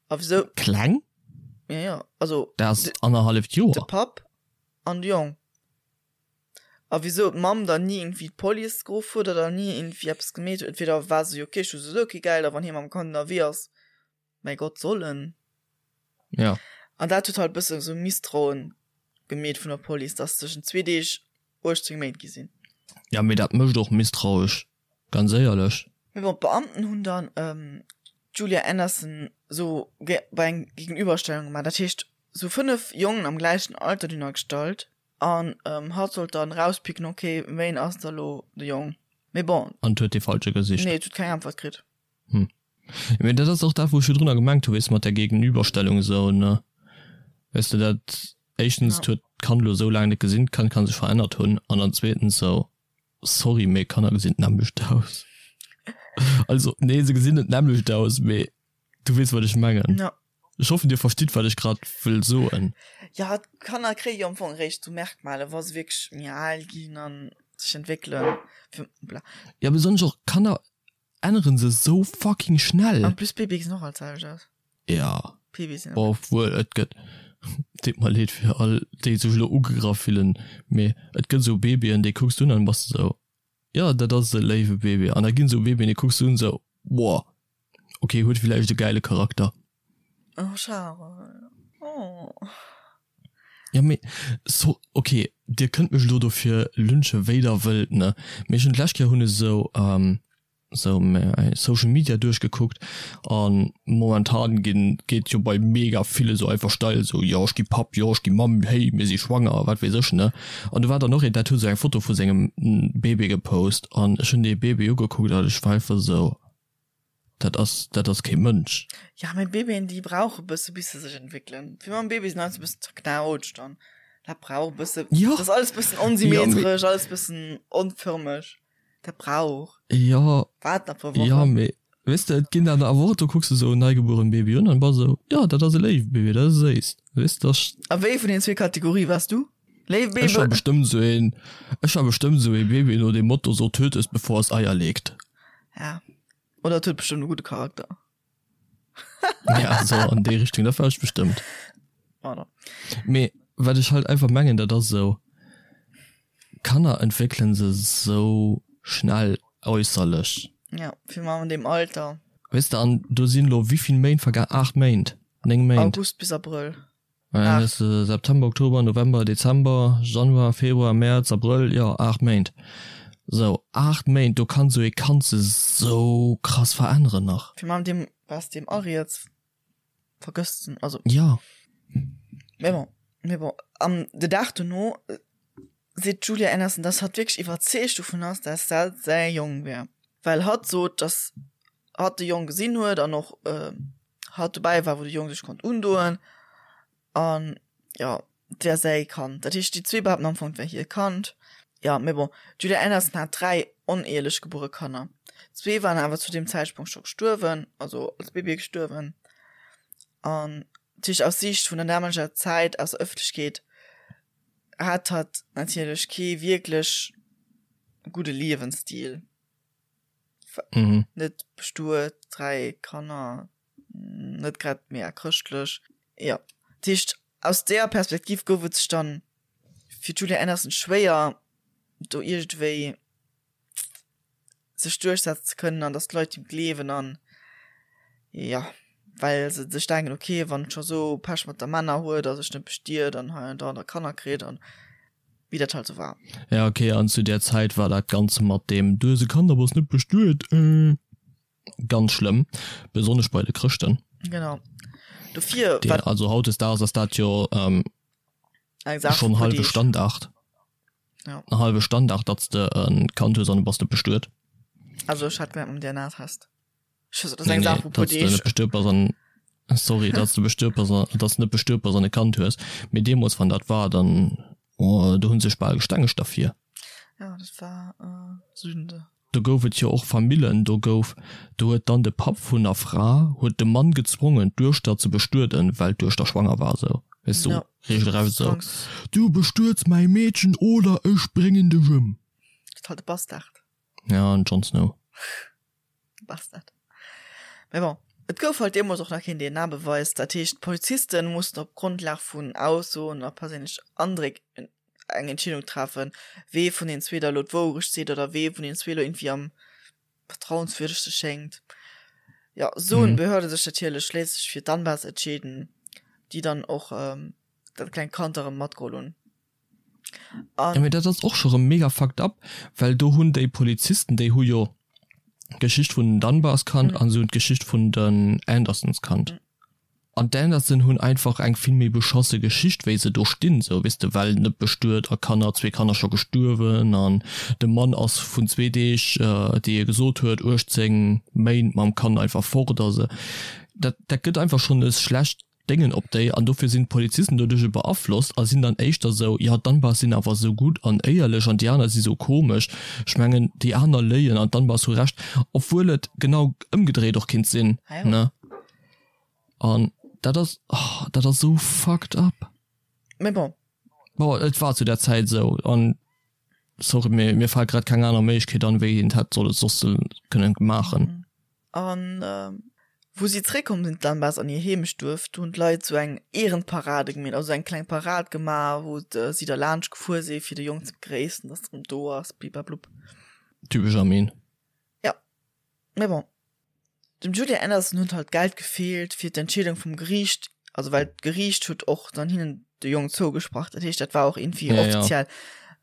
A wisou? Kleng? Ja, ja, also. Dat ass annerhalleft Joer. De Papp an de Jong. A wisou d'Mamm dann ni iergendwéi d'Police geruff huet oder ni iergendwéi eppes gemeet huet. Entweder war se jo ok, ech hu souwisou kee Geld a wann hie mam Kand ënnerwee ass, mäi Gott, soll en. Ja. An dat huet halt bëssen esou Misstrauen gemeet vun der Police, dass tëschent zwee Deeg 18 Méint gi sinn. Ja, mee dat mécht och misstrauesch, ganz éierlech. Mee bon, d'Beamten hunn dann d'Julia Anderson sou bei eng Gegenüberstellung gemaach, dat heescht sou 5 Jongen am gläichen Alter dunner gestallt an hatt sollt dann rauspicken, ok, wéin ass da lo de Jong? Mee bon. An et huet dee falsche gesicht? Nee, et huet keng Äntwert kritt. Hm. Mee dat ass och dat, wou ech virdrunner gemengt hu, weess de, mat där Gegenüberstellung esou, ne? Weess de, dat éischtens, et huet d'Kand elo esou laang net gesinn, d'Kand ka sech verännert hunn, an dann zweetens esou, sorry, mee Kanner gesinn d'nämmlecht aus. Also, nee, se gesinn net d'nämmlecht aus, mee du weess, wat ech mengen. Ja. Ech hoffen, dir verstitt, wat ech grad wëll soen. Ja, d'Kanner kréie jo am Fong eréischt esou Merkmale, wa se wierklech méi al ginn a sech entwéckelen. Bla. Ja, besonnesch och Kanner änneren se sou fucking schnell. En plus Babye gesinn och all d'selwecht aus. Ja. Babye sinn. Obwuel et gëtt, deet mer leed fir all déi sech elo ugegraff fillen, mee et gëtt esou Babyen déi kucks du un an bass de sou, jo dat ass e léiwe Baby an da ginn esou Babyen déi kucks du un sou, boah ok huet villäicht e gäile Charakter. Oh Charel, oh. Ja mee so ok dir kënnt mech elo dofir lynchen wéi der wëllt ne, mee ech hunn d'lescht Kéier hunn ech esou esou mäi Social Media duerchgekuckt an momentan ginn geet jo bei mega ville sou einfach steil esou jo ech gi Papp, jo ech gi Mamm, hey mir si schwanger wat weess ech ne. An do war dann och een dat huet esou eng Foto vu sengem Bébé gepost an ech hunn dee Bébé ugekuckt an ech war einfach esou Dat ass, dat ass kee Mënsch. Ja, mee Babyen, déi brauche bësse bis se sech entwéckelen. Fir mam Baby sinn alles e bëssen zerknautscht an dat brauch e bësse. Ja. Dat ass alles bëssen onsymmetresch, alles bëssen onförmeg. Dat brauch. Ja. Waart nach e puer Wochen. Ja, mee weess de, et ginn dann awer och, do kucks de sou en neigebuerent Baby un an bass esou, jo, dat ass e léiwe Baby, dat ass séiss. Weess de, dat. A wéi vun den zwee Kategorie waars du? Léiw Baby? Ech war bestëmmt sou een, ech war bestëmmt sou ee Baby no dem Motto, so töt es bevor es Eier legt. Ja. Oder et huet bestëmmt e gudde Charakter. Ja, so an déi Richtung, dat war ech bestëmmt. Voilà. Mee wat ech halt einfach mengen, dat ass esou, Kanner entwéckelen se sou schnell äusserlech. Ja, fir mal an deem Alter. Weess de, an do sinn elo wéivill Méint vergaang? 8 Méint, 9 Méint. August bis Abrëll. Dann hues de September, Oktober, November, Dezember, Januar, Februar, Mäerz, Abrëll, jo 8 Méint. Sou 8 Méint, do kann sou ee Kand sech sou krass veränneren nach. Fir mam deem was deem ariets vergësst en, also. Jo. Mee bon, mee bon, an de Dag dono seet d'Julia Anderson, dass hatt wierklech iwwerzeegt dovun ass, dass dat säi Jong wär, well hatt sot, dass hatt de Jong gesinn huet an och hatt dobäi war wou de Jong sech konnt undoen an jo et wär säi Kand. Dat heescht déi zwee behaapten am Fong et wär hir Kand. Jo mee bon d'Julia Anderson hat 3 oneheelech gebuere Kanner. Zwee waren awer zu deem Zäitpunkt scho gestuerwen, also als Babye gestuerwen an dat heescht aus Siicht vun der damaleger Zäit aus der Ëffentlechkeet hat hatt natierlech kee wierklech gudde Liewensstil. Mhm. Net bestuet, 3 Kanner, net grad mega chrëschtlech. Jo, dat heescht aus deeër Perspektiv gouf et sech dann fir d'Julia Anderson schwéier do iergendwéi sech duerchsetzen ze kënnen an datt d'Leit him gleewen an jo, well se sech denken, ok wann et scho sou Pech mat der Männer huet a sech net bestiet an hei an da an da Kanner kritt an wéi dat halt sou war. Ja ok, an zu där Zäit war dat Ganze mat deem du hues e Kand a bass net bestuet äh ganz schlëmm, besonnesch bei de Chrëschten. Genau, dofir Dee, war. Also hautdesdaags ass dat jo ähm, eng Saach vu schonn puer hallwe Deeg. Standard. Ja. En hallwe Standard, datt s de e Kand hues an du bass net bestuet. Also ech hat gemengt mam DNA-Test. Nee, nee, datt s de net bestuet bass an, sorry, datt s de bestuet bass an, datt s net bestuet bass an e Kand hues. Mee deemools, wann dat war, dann, oh, do hu sech bal gestengegt derfir. Ja, dat war Sünde. Do gouf et jo och Famillen, do gouf, do huet dann de Papp vun der Fra huet de Mann gezwongen, d'Duechter ze bestueden, well d'Duechter schwanger war, esou, weess du, Ja, regelrecht esou, Zwangs. Du bestuets mäi Meedchen oder ech bréngen dech ëm. Dat halt de Bastard. Ja, den Jon Snow. Bastard. Mee bon, et gouf halt deemools och nach keen DNA-Beweis. Dat heescht, d'Polizisten mussten op Grondlag vun Aussoen a perséinlechen Andréck eng Entscheedung treffen, wee vun den zwee da lo d'Wourecht seet oder wee vun den zwee lo irgendwie am vertrauenswürdegste schéngt. Jo, sou hunn d'Behörde sech natierlech schliesslech fir d'Anbas entscheeden. Déi dann och dat klengt Kand erëm matgeholl hunn. An. Jo, mee dat ass och scho rëm mega fucked up, well do hunn déi Polizisten, déi hu jo d'Geschicht vun den Dunbars kannt an se hunn d'Geschicht vun den Andersons kannt. An d'Anderson hunn einfach eng vill méi beschosse Geschicht wéi se do stinn, sou weess de, well net bestuet a Kanner, zwee Kanner scho gestuerwen an de Mann ass vun zwee Deeg, déi e gesot huet, 18 Méint mam Kand einfach fort. Also dat dat gëtt einfach schonn e schlecht Déngen op déi an dofir sinn d'Polizisten doduerch e beaflosst a sinn dann éischter sou, jo d'Dunbars sinn awer sou gutt an éierlech an déi aner si sou komesch, ech mengen déi aner léien an d'Dunbars hu Recht, obwuel et genau ëmgedréit och kinnt sinn, ne? An dat ass, oh, dat ass sou fucked up. Mais bon. Bon, et war zu der Zäit esou an sorry, mee mir fält grad keng aner Méiglechkeet an, wéi een et hätt solle soss kënnen maachen. An wou si zréckkomm sinn, d'Lambas, an hir Heemechtduerf, do hunn d'Leit sou eng Ehrenparade gemeet, also eng kleng Parad gemaach, wou si da laanscht gefuer si fir de Jong ze begréissen, dass en erëm do ass, bliblablub. Typesch Armin. Jo, mais bon. Dem Julia Anderson huet halt d'Geld gefeelt fir d'Entscheedung vum Geriicht, also well d'Geriicht huet och dann hinnen de Jong zougesprach, dat heescht dat war och irgendwie Ja, ja. offiziell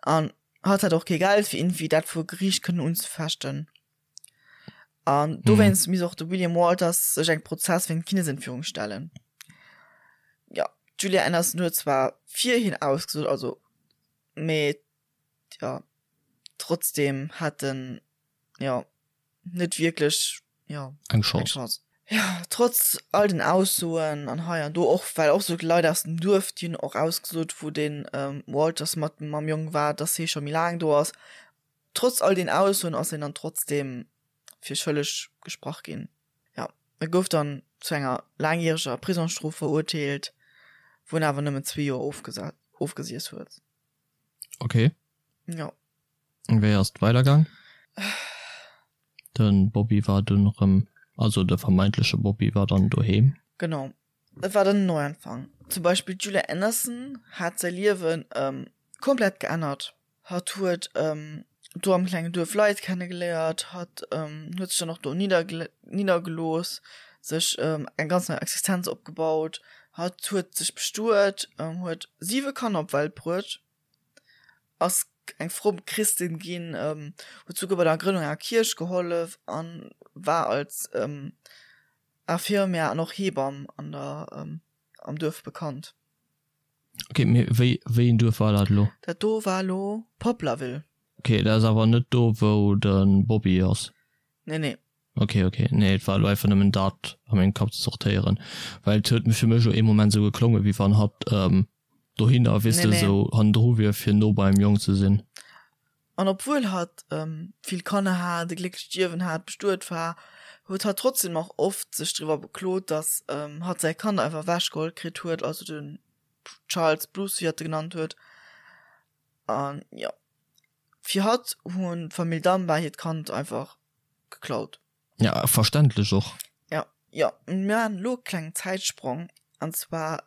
an hatt hat och kee Geld fir irgendwie dat vor Geriicht kënnen unzefechten. An dowéinst misst och de William Walters sech engem Prozess wéint Kindesentführung stellen. Jo, d'Julia Anderson huet zwar fir hien ausgesot, also mee jo trotzdem hat en jo net wierklech jo eng Chance. Chance. Jo, trotz all den Aussoen an hei an do och, well och sou Leit aus dem Duerf, déi hunn och ausgesot, wou den Walters mat mam Jong war, dass hie scho méi laang do ass. Trotz all den Aussoen ass hien dann trotzdem fir schëlleg gesprach ginn. Jo, e gouf dann zu enger laangjäreger Prisongsstrof verurteelt, wou en awer nëmmen zwee Joer ofgesiess huet. Okay. Jo. Wéi ass et weidergaang? De Bobby war dunn erëm, also de vermeintleche Bobby war dann doheem. Genau, et war dann en Neuanfang. Zum Beispill d'Julia Anderson hat säi Liewen komplett geännert. Hatt huet do am klengen Duerf Leit kennegeléiert, hatt huet sech dann och do niddergelooss, sech eng ganz nei Existenz opgebaut. Hatt huet sech bestuet, huet siwe Kanner op d'Welt bruet. Ass eng fromm Christin ginn, huet souguer bei der Grënnung enger Kierch gehollef an war als Infirmière an och Hebamm an der am Duerf bekannt. Ok, mee wéi wéi een Duerf war dat elo? Dat do war elo Poplarville. Ok, dat ass awer net do wou de Bobby ass? Nee, nee. Ok, ok, nee et war elo einfach nëmmen dat a mengem Kapp ze sortéieren, well et huet fir mech elo ee Moment esou geklongen, wéi wann hatt dohinner, weess de, esou hannendru wier fir no beim Jong ze sinn. An obwuel hatt vill Kanner hat, e glécklecht Liewen hat, bestuet war, huet hatt trotzdem nach oft sech driwwer beklot, datt hatt säi Kand einfach ewechgeholl kritt huet, also den Charles Bruce, wéi hatt e genannt huet. An jo, fir hatt hunn d'Famill Dunbar hiert Kand einfach geklaut. Ja, verständlech och. Ja, jo, mir maachen elo e klengen Zäitsprong, an zwar,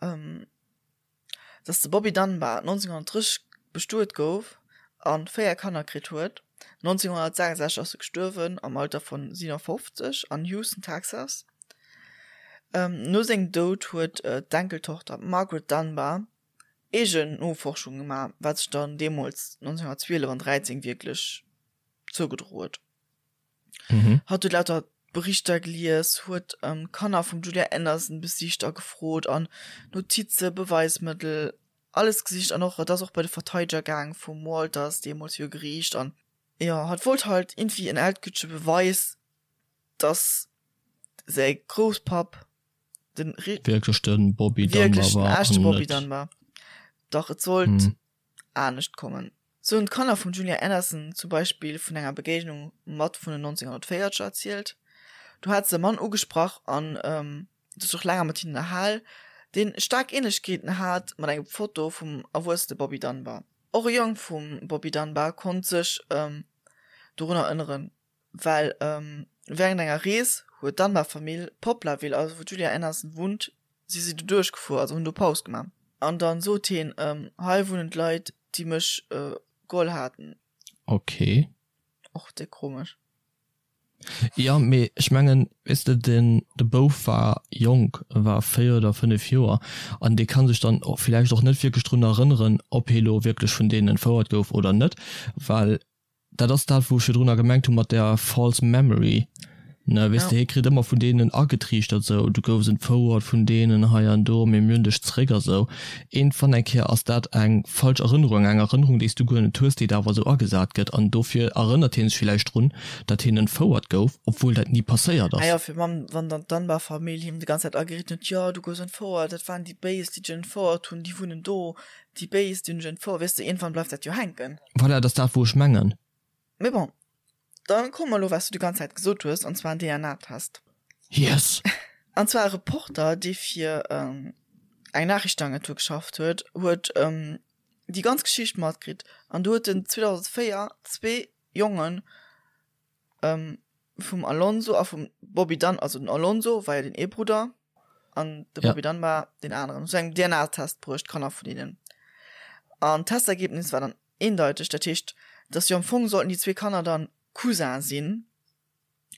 dass de Bobby Dunbar 1930 bestuet gouf a 4 Kanner kritt huet. 1966 ass e gestuerwen, am Alter vun 57 an Houston, Texas. No sengem Doud huet d'Enkeltochter Margaret Dunbar eegen Noforschunge gemaach, wat sech dann deemools 1912 an 13 wierklech zougedro huet. Mhm. Hatt huet lauter Berichter gelies, huet ähm, Kanner vum Julia Anderson besicht a gefrot an Notize, Beweismëttel, alles gesicht an och et ass och bei de Verteideger gaang vum Walters deemools viru Geriicht an jo, hatt wollt halt irgendwie en endgültege Beweis, dass säi Grousspapp den Wierklech den Bobby Dunbar wierklech den war echte an Bobby net Dunbar. Dach et sollt Mhm. anescht kommen. Sou hunn d'Kanner vum Julia Anderson zum Beispill vun enger Begéignung mat vun den 1940er erzielt. Do hat se e Mann ugesprach an sech och länger mat hinnen ënnerhal, deen staark Ähnlechkeeten hat mat engem Foto vum erwuessene Bobby Dunbar. Och e Jong vum Bobby Dunbar konnt sech dorun erënneren, well wärend enger Rees huet d'Dunbar-Famill Poplarville, also wou d'Julia Anderson wunnt, si si do duerchgefuer, also hunn do Paus gemaach. An dann sot hien, Hei wunnen d'Leit, déi mech geholl haten. Ok. Och déck komesch. Jo, mee ech mengen, weess de, den de Bouf war jonk, e war 4 oder 5 Joer an dee ka sech dann och villäicht och net wierklech drun erënneren, ob hie lo wierklech vun deenen entfouert gouf oder net, well dat ass dat, wou ech virdrunner gemengt hu mat där false memory, ne, weess de, hie kritt ëmmer vun deenen agetriichtert, sou, du goufs entfouert vun deenen hei an do, mee mir hunn dech zréck a sou. Iergendwann eng Kéier ass dat eng falsch Erënnerung, eng Erënnerung, déi s du guer net hues, déi der awer esou agesat gëtt. An dofir erënnert hie sech villäicht drun, datt hien entfouert gouf, obwuel dat ni passéiert Ah jo, ass. fir wann, wann dann d'Dunbar-Famill him déi ganz Zäit ageritt huet, jo, du goufs entfouert, dat waren déi Béis, déi dech entfouert hunn, déi wunnen do, déi Béis, déi hunn dech entfouert, weess de, iergendwann bleift dat jo hänken. Voilà, dat ass dat, wou ech mengen. Mee bon, Dann komme mer elo wat s du déi ganz Zäit gesot hues, an zwar en DNA-Test. Yes! An zwar e Reporter, dee fir eng Nachrichtenagentur geschafft huet, huet déi ganz Geschicht matkritt. An do huet en 2004 zwee Jonge vum Alonso a vum Bobby Dunn, also den Alonso war jo den ee Brudder an de Bobby Dunbar deen aneren, zu engem DNA-Test bruecht, d'Kanner vun hinnen. An d'Testergebnis war dann Eendeiteg, dat heescht, dass jo am Fong sollten déi zwee Kanner dann Cousin sinn,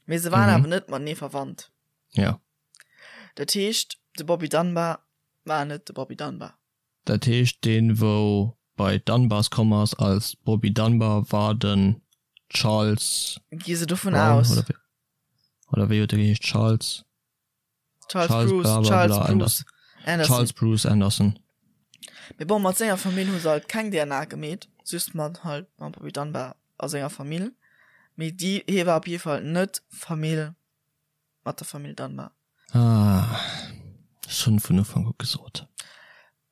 mee se waren awer net matenee verwandt. Ja. Dat heescht, de Bobby Dunbar war net de Bobby Dunbar. Dat heescht, deen, wou bei d'Dunbars komm ass als Bobby Dunbar, war den Charles Gi se dovun Brown, aus. oder wéi, oder wéi huet e geheescht? Charles? Charles, Charles Bruce, bla bla Charles bla Bruce Anderson. Charles Bruce Anderson. Mee bon, mat senger Famill hu se halt keng DNA gemeet, just mat halt mam Bobby Dunbar a senger Famill. Mee déi, hie war op jidde Fall net Famill mat der Famill Dunbar. Ah, ech hunn vun Ufank u gesot.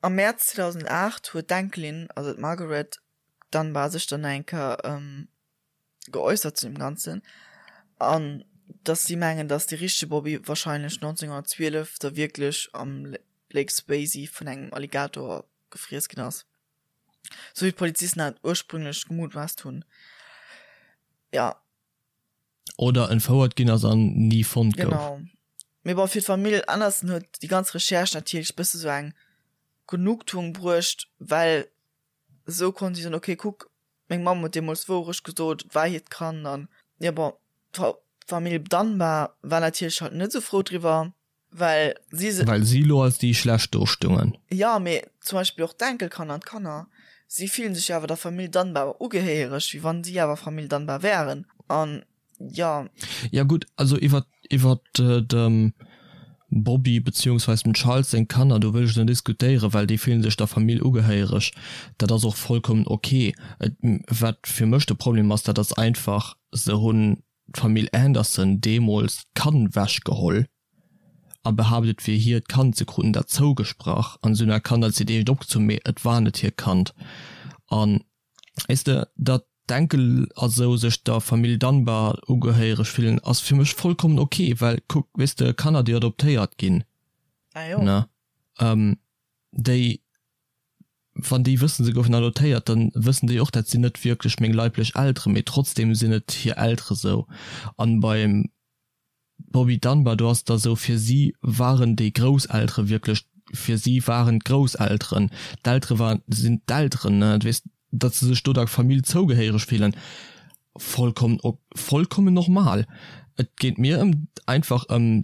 Am Mäerz 2008 huet d'Enkelin, also d'Margaret Dunbar, sech dann nach eng Kéier geäussert zu dem Ganzen an dass si mengen, dass de richtege Bobby wahrscheinlech 1912 da wierklech am Lake Swayze vun engem Alligator gefriess ginn ass, sou wéi d'Polizisten dat ursprünglech gemutmaasst hunn. Ja. Oder entfouert ginn ass an ni fonnt gouf. Genau. Mee bon, fir d'Famill Anderson huet déi ganz Recherche natierlech bësse sou eng Genugtuung bruecht, well esou konnt si soen, ok, kuck, Meng Mamm huet deemools d'Wourecht gesot, et war hiert Kand an jo bon, d'Famill Dunbar war natierlech halt net esou frou driwwer, well si se. Well si lo als déi schlecht do stungen. Jo, mee zum Beispill och d'Enkelkanner an d'Kanner, si fillen sech jo awer der Famill Dunbar ugehéiereg, wéi wann si awer Famill Dunbar wären an Jo. Ja gutt, also iwwer iwwer dem Bobby beziehungsweis dem Charles seng Kanner, do wëll ech net diskutéieren, well déi fillen sech der Famill ugehéiereg. Dat ass och vollkommen ok. Et wat fir mech de Problem ass, dat ass einfach, se hunn d'Famill Anderson deemools d'Kand wech geholl a behaapt et wier hiert Kand, se kruten dat zougesprach an se hunn dat Kand als hiert eegent opgezunn, mee et war net hiert Kand. An Weess de, datt d'Enkel a sou sech der Famill Dunbar ugehéiereg fillen, ass fir mech vollkommen ok, well kuck, weess de, Kanner déi adoptéiert ginn, ne, déi, wann déi wëssen, se goufen adoptéiert, dann wëssen déi och, dat sinn net wierklech meng leiblech Elteren, mee trotzdem sinn et hir Eltere sou. An beim Bobby Dunbar, do ass et da sou, fir si waren déi Grousseltere wierklech, fir si waren d'Grousselteren, d'Eltere waren, sinn d'Elteren, ne, du weess, datt se sech do der Famill zougehéiereg fillen, vollkommen ok, vollkommen normal. Et geet mir ëm einfach ëm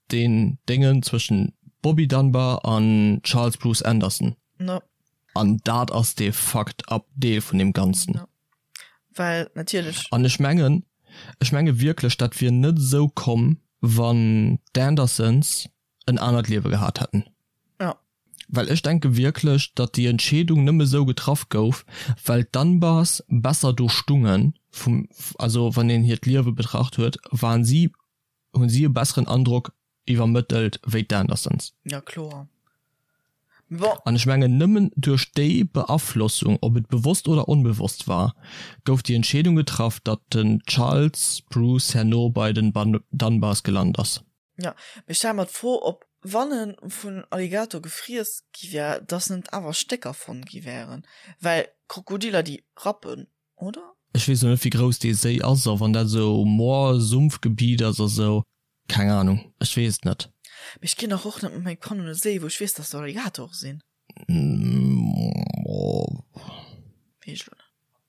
deen Déngen zwëschen Bobby Dunbar an Charles Bruce Anderson. No. An dat ass dee fucked up Deel vun deem Ganzen. No. Well natierlech. An ech mengen, ech menge wierklech, dat wier net esou komm, wann d'Andersons en anert Liewe gehat hätten. Ja. Well ech denke wierklech, datt déi Entscheedung nëmme esou getraff gouf, well d'Dunbars besser do stungen, vum, also wann een hiert Liewe betracht huet, waren si, hunn si e besseren Androck iwwermëttelt wéi d'Andersons. Ja kloer. Mee bon. An ech mengen nëmmen duerch déi Beaflossung, ob et bewosst oder onbewosst war, gouf déi Entscheedung getraff, datt den Charles Bruce herno bei den Dunbars gelant ass. Jo, mee ech stelle mer d'Fro, ob wann e vun Alligator gefriess gi wär, datt net awer Stécker fonnt gi wären, well Krokodiller déi rappen, oder? Ech weess lo net wéi grouss dee Séi ass a wann dat esou Moor, Sumpfgebiet ass a sou, keng Ahnung, ech weess et net. Mee ech ginn dach och net mat mengem Kand un e Séi wou ech weess dass do Alligatore sinn. Weess ech lo net.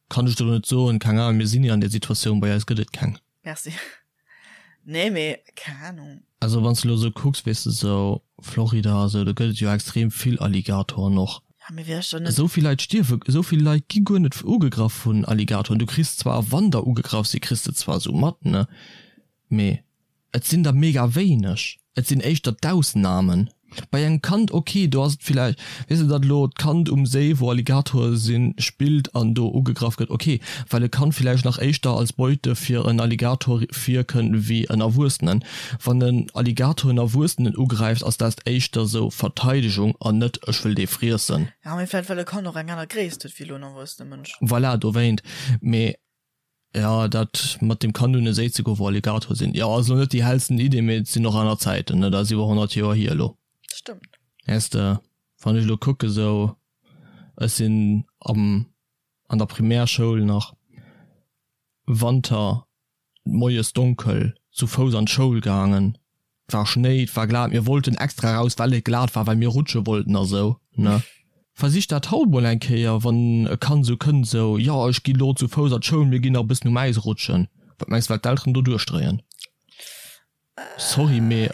Kann ech der lo net soen, keng Ahnung, mir sinn ni an där Situatioun, bei eis gëtt et keng. Merci. Nee, mee keng Ahnung. Also wann s de elo esou kucks, weess de, esou Florida a sou, do gëtt et jo extrem vill Alligatoren och. Ja, mee wär ech dann net. Esou vill Leit stierwe, esou vill Leit gi guer net ugegraff vun Alligatoren. Du kriss zwar, wann der ugegraff si, kriss de zwar esou mat, ne, mee Et sinn der mega wéineg, et sinn éischter d'Ausnamen. Bei engem Kand, ok, do ass et villäicht, weess de, datt elo d'Kand um Séi, wou Alligatore sinn, spillt an do ugegraff gëtt, ok, well e Kand villäicht nach éischter als Beute fir en Alligator virkënnt wéi en Erwuessenen. Wann en Alligator en Erwuessenen ugräift, ass dat éischter sou Verteidegung an net ech wëll dee friessen. Jo, mee vläicht well e Kand och eng aner Gréisst huet wéi elo en erwuessene Mënsch. Voilà, dowéint. Mee Ja, dat mat dem Kanu un e Séi ze goen, wou Alligatoren sinn, jo, ass elo net déi hellsten Idee, mee et sinn och aner Zäiten, ne, dat ass iwwer 100 Joer hier elo. Stëmmt. Weess de, wann ech elo kucke sou, ech sinn am, an der Primärschoul nach Wanter moies donkel zu Fouss an d'Schoul gaangen, 't war Schnéi, 't war glat, mir wollten extra raus, well et glat war, well mir rutsche wollten a sou, ne? Versich dat haut mol eng Kéier, wann e Kand sou kënnt, sou, jo, ech gi lo zu Fouss an d'Schoul, mir ginn nach e bëssen um Äis rutschen. Wat mengs de, wat d'Elteren do duerchdréien? Sorry, mee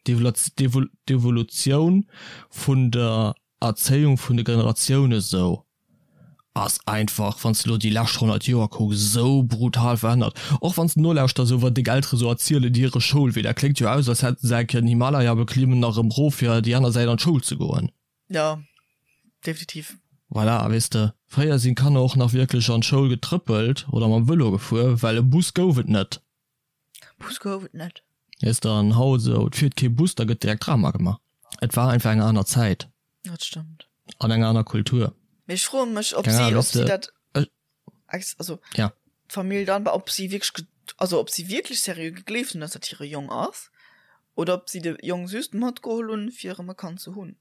d'Evolutioun vun der Erzéiung vun de Generatioune sou ass einfach, wann s de lo déi lescht 100 Joer kucks, esou brutal verännert. Och wann s de nolauschters, esou wat deng Eltere sou erzielen, hire Schoulwee, dat kléngt jo aus, als hätte se eng Kéier den Himalaya beklimmen a rëm rof fir déi aner Säit an d'Schoul ze goen. Jo, definitiv. Voilà, weess de, fréier sinn d'Kanner och nach wierklech an d'Schoul getrëppelt oder mam Vëlo gefuer, well e Bus gouf et net. Bus gouf et net. Weess de, an haut esou, et fiert kee Bus, da gëtt direkt Drama gemaach. Et war einfach eng aner Zäit. Dat stëmmt. An eng aner Kultur. Mee ech froe mech, ob si, ob si dat, also ja. d'Famill dann, ob si wierklech, also ob si wierklech seriö gegleeft hunn, dass dat hire Jong ass, oder ob si de Jong just matgeholl hunn, fir erëm e Kand ze hunn.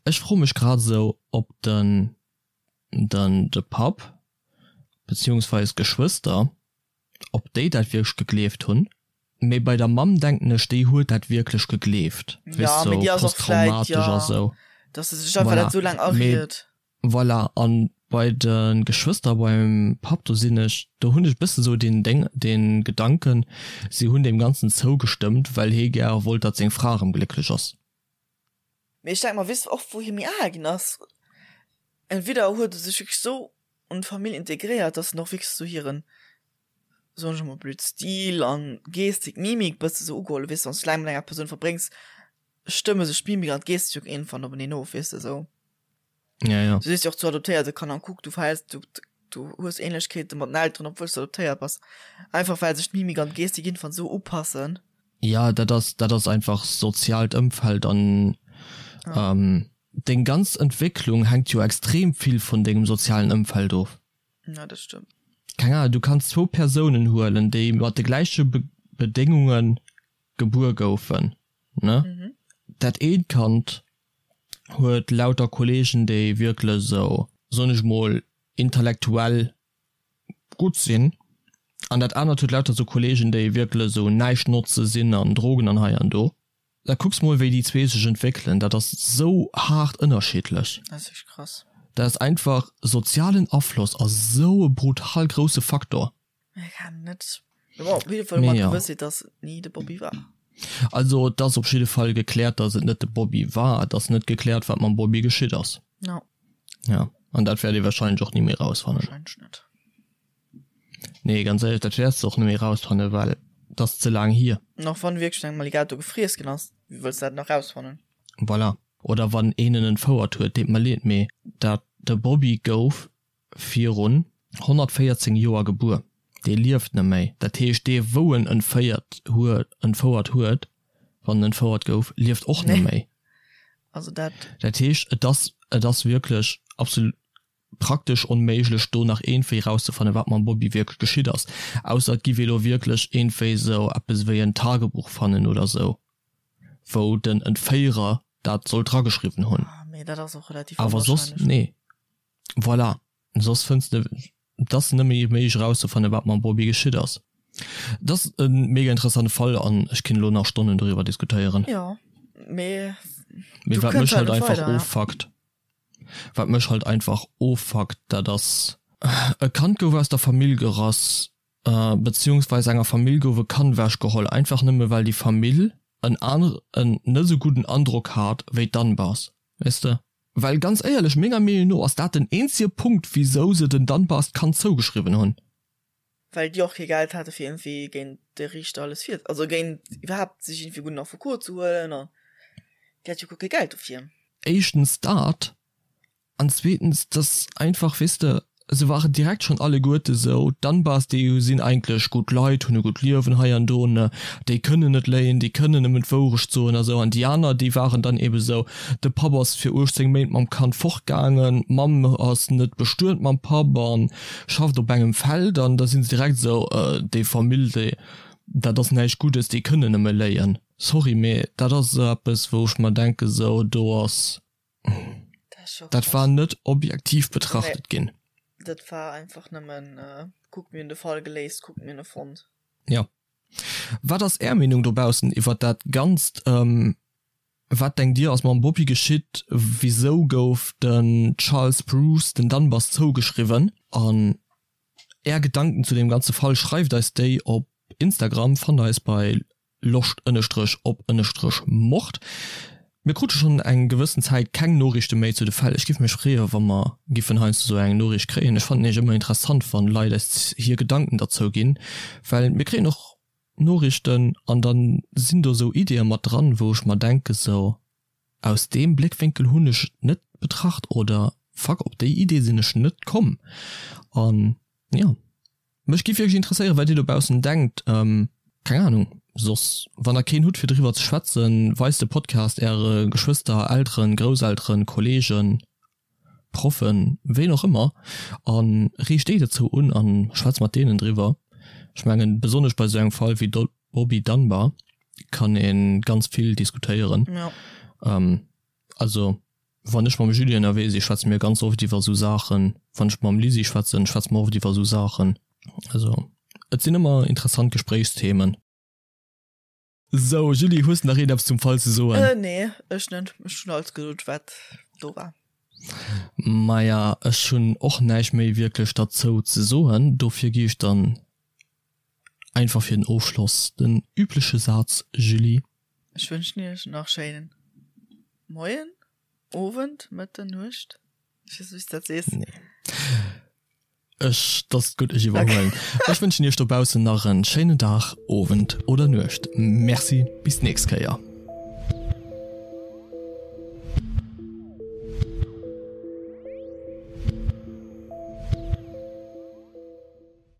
Ech froe mech grad esou, ob den, den, de Papp, beziehungsweis d'Geschwëster, ob déi dat wierklech gegleeft hunn, mee bei der Mamm denken ech, déi huet dat wierklech gegleeft, weess sou posttraumatesch a sou. Voilà, mee voilà, an bei de Geschwëster beim Papp, do sinn ech, do hunn ech e bësse sou deen Déng, dee Gedanken, si hunn deem Ganzen zougestëmmt, well hee gäre wollt, datt seng Fra erëm glécklech ass. Mee ech denke mer, weess de och wou hie méi al ginn ass, entweder huet e sech wierklech sou an d'Famill integréiert, dass en och wierklech sou hiren, soen ech emol blöd, Stil an Gestik, Mimik bësse sou ugeholl, weess de, wann s du laang mat enger Persoun verbréngs, stëmme sech d'Mimik an d'Gestik jo iergendwann openeen of, weess de, sou. Ja, ja. Du sees jo och zu adoptéierte Kanner, kuck, du verhäls, du, du hues Ähnlechkeete mat den Elteren, obwuel s du adoptéiert bass, einfach well sech d'Mimik an d'Gestik iergendwann sou upassen. Ja, dat ass, dat ass einfach soziaalt Ëmfeld an deng ganz Entwécklung hänkt jo extrem vill vun dengem sozialen Ëmfeld of. Ja, dat stëmmt. Keng Ahnung, du kanns zwou Persounen huelen, déi mat de gläiche Bedéngunge gebuer goufen, ne? Dat eent Kand huet lauter Kollegen, déi wierklech esou, soen ech mol, intellektuell gutt sinn an dat anert huet lauter sou Kollegen déi wierklech sou näischt notze sinn an Drogen an hei an do. Da kucks mol wéi déi zwee sech entwéckelen, dat ass sou haart ënnerschiddlech. Dat ass wierklech krass. Dat ass einfach, sozialen Afloss ass sou e brutal grousse Faktor. Ech kann net, mee bon, op jidde Fall hu mer d'Gewëssheet, dass et ni de Bobby war. Also et ass op jidde Fall gekläert, dass et net de Bobby war. Et ass net gekläert wat mam Bobby geschitt ass. No. Ja, an dat wäert ee wahrscheinlech och ni méi rausfannen. Wahrscheinlech net. Nee, ganz éierlech, dat wäerts de och net méi rausfannen, well et ass ze laang hier. An och wann wierklech engem Alligator gefriess ginn ass, wéi wëlls de dat nach rausfannen? Voilà. Oder wann een en entfouert huet, deet mer leed, mee dat de Bobby gouf virun 114 Joer gebuer, dee lieft net méi. Dat heescht, dee wou en entféiert huet, entfouert huet, wann en entfouert gouf, lieft och net méi. Also dat. Dat heescht, et ass, et ass wierklech absolut praktesch onméiglech do nach iergendwéi rauszefannen, wat mam Bobby wierklech geschitt ass, ausser et giff ee lo wierklech iergendwéi esou eppes ewéi en Tagebuch fannen oder esou, wou den Entféierer dat soll drageschriwwen hunn. Mee dat ass och relativ Awer soss, onwahrscheinlech. nee. Voilà, soss fënns de, et ass net méi méiglech erauszefannen, wat mam Bobby geschitt ass. Et ass e mega interessante Fall an ech kinnt elo nach Stonnen doriwwer diskutéieren. Jo, mee Mee wat mech halt einfach offuckt, wat mech halt einfach offuckt, dat ass, e Kand gouf aus der Famill gerass. Beziehungsweis enger Famill gouf e Kand ewech geholl, einfach nëmme well déi Famill en en net esou gudden Androck hat wéi d'Dunbars, weess de? Well ganz éierlech, menger Meenung no ass dat den eenzege Punkt wisou se den Dunbars d'Kand zougeschriwwen hunn. Well déi och kee Geld hate fir iergendwéi géint de Riichter alles vir, also géint iwwerhaapt sech iergendwéi gudden Affekot ze huelen an déi hat jo guer kee Geld dofir. Éischtens dat an zweetens dass einfach, weess de, se waren direkt schonn alleguerte sou, d'Dunbars déi sinn eigentlech gutt Leit, hunn e gutt Liewen hei an do, ne, déi kënnen net léien, déi kënnen nëmmen d'Wourecht soen a sou. An déi aner déi waren dann ebe sou, de Papp ass fir 18 Méint mam Kand fortgaangen, d'Mamm ass net bestuet mam Papp an schafft op engem Feld an da sinn se direkt esou, déi Famill, déi, dat ass näischt Guddes, déi kënnen nëmme léien. Sorry, mee dat ass esou eppes, wou ech mer denken, esou, do ass, dat war net objektiv betrachtet ginn. Dat war einfach nëmmen, kuck mir hunn de Fall geléist, kuck mir hunn e fonnt. Jo. Wat ass Är Meenung dobaussen iwwert dat Ganzt? Wat denkt dir ass mam Bobby geschitt? Wisou gouf den Charles Bruce den Dunbars zougeschriwwen? An är Gedanken zu deem ganze Fall, schreift eis déi op Instagram, fannt eis bei loscht ënnestrech op ënnestrech mord. Mir krute schonn eng gewëssen Zäit keng Noriichte méi zu de Fäll. Ech giff mech freeë wa mer giffen heiansdo sou eng Noriicht kréien. Ech fannen nämlech ëmmer interessant wann Leit eis hir Gedanken derzou ginn, well mir kréien och Noriichten an dann sinn do sou Ideeë mat dran, wou ech mer denke sou, aus deem Bléckwénkel hunn ech et net betracht oder fuck op déi Idee sinn ech net komm. An jo, mech giff wierklech interesséieren, wat dir dobaussen denkt. Keng Ahnung, soss wann der keen hutt fir driwwer ze schwätzen, weist de Podcast äre Geschwëster, Elteren, Grousselteren, Kollegen, Proffen, ween och ëmmer, a reegt déi dozou un a schwätzt mat deenen driwwer. Ech mengen, besonnesch bei esou engem Fall wéi Bobby Dunbar kann ee ganz vill diskutéieren. Also wann ech mam Julie ënnerwee si schwätze mir ganz oft iwwer esou Saachen. Wann ech mam Lisi schwätzen, schwätze mer oft iwwer esou Saachen. Also et sinn ëmmer interessant Gespréichsthemen. Sou, Julie, hues de nach iergendeppes zum Fall ze soen? Äh, nee, ech net. Ech hunn alles gesot, wat do war. Maja, ech hunn och näischt méi wierklech derzou ze soen. Dofir gi ech dann einfach fir den Ofschloss den übleche Saz, Julie. Ech wënschen iech nach schéinen Moien, Owend, Mëtten, Nuecht, ech weess net, wéi s de dat sees. Nee. Ech, dass gutt, ech iwwerhuelen. Ech wënschen iech dobaussen nach en schéinen Dag, Owend oder Nuecht. Merci, bis d'nächst Kéier.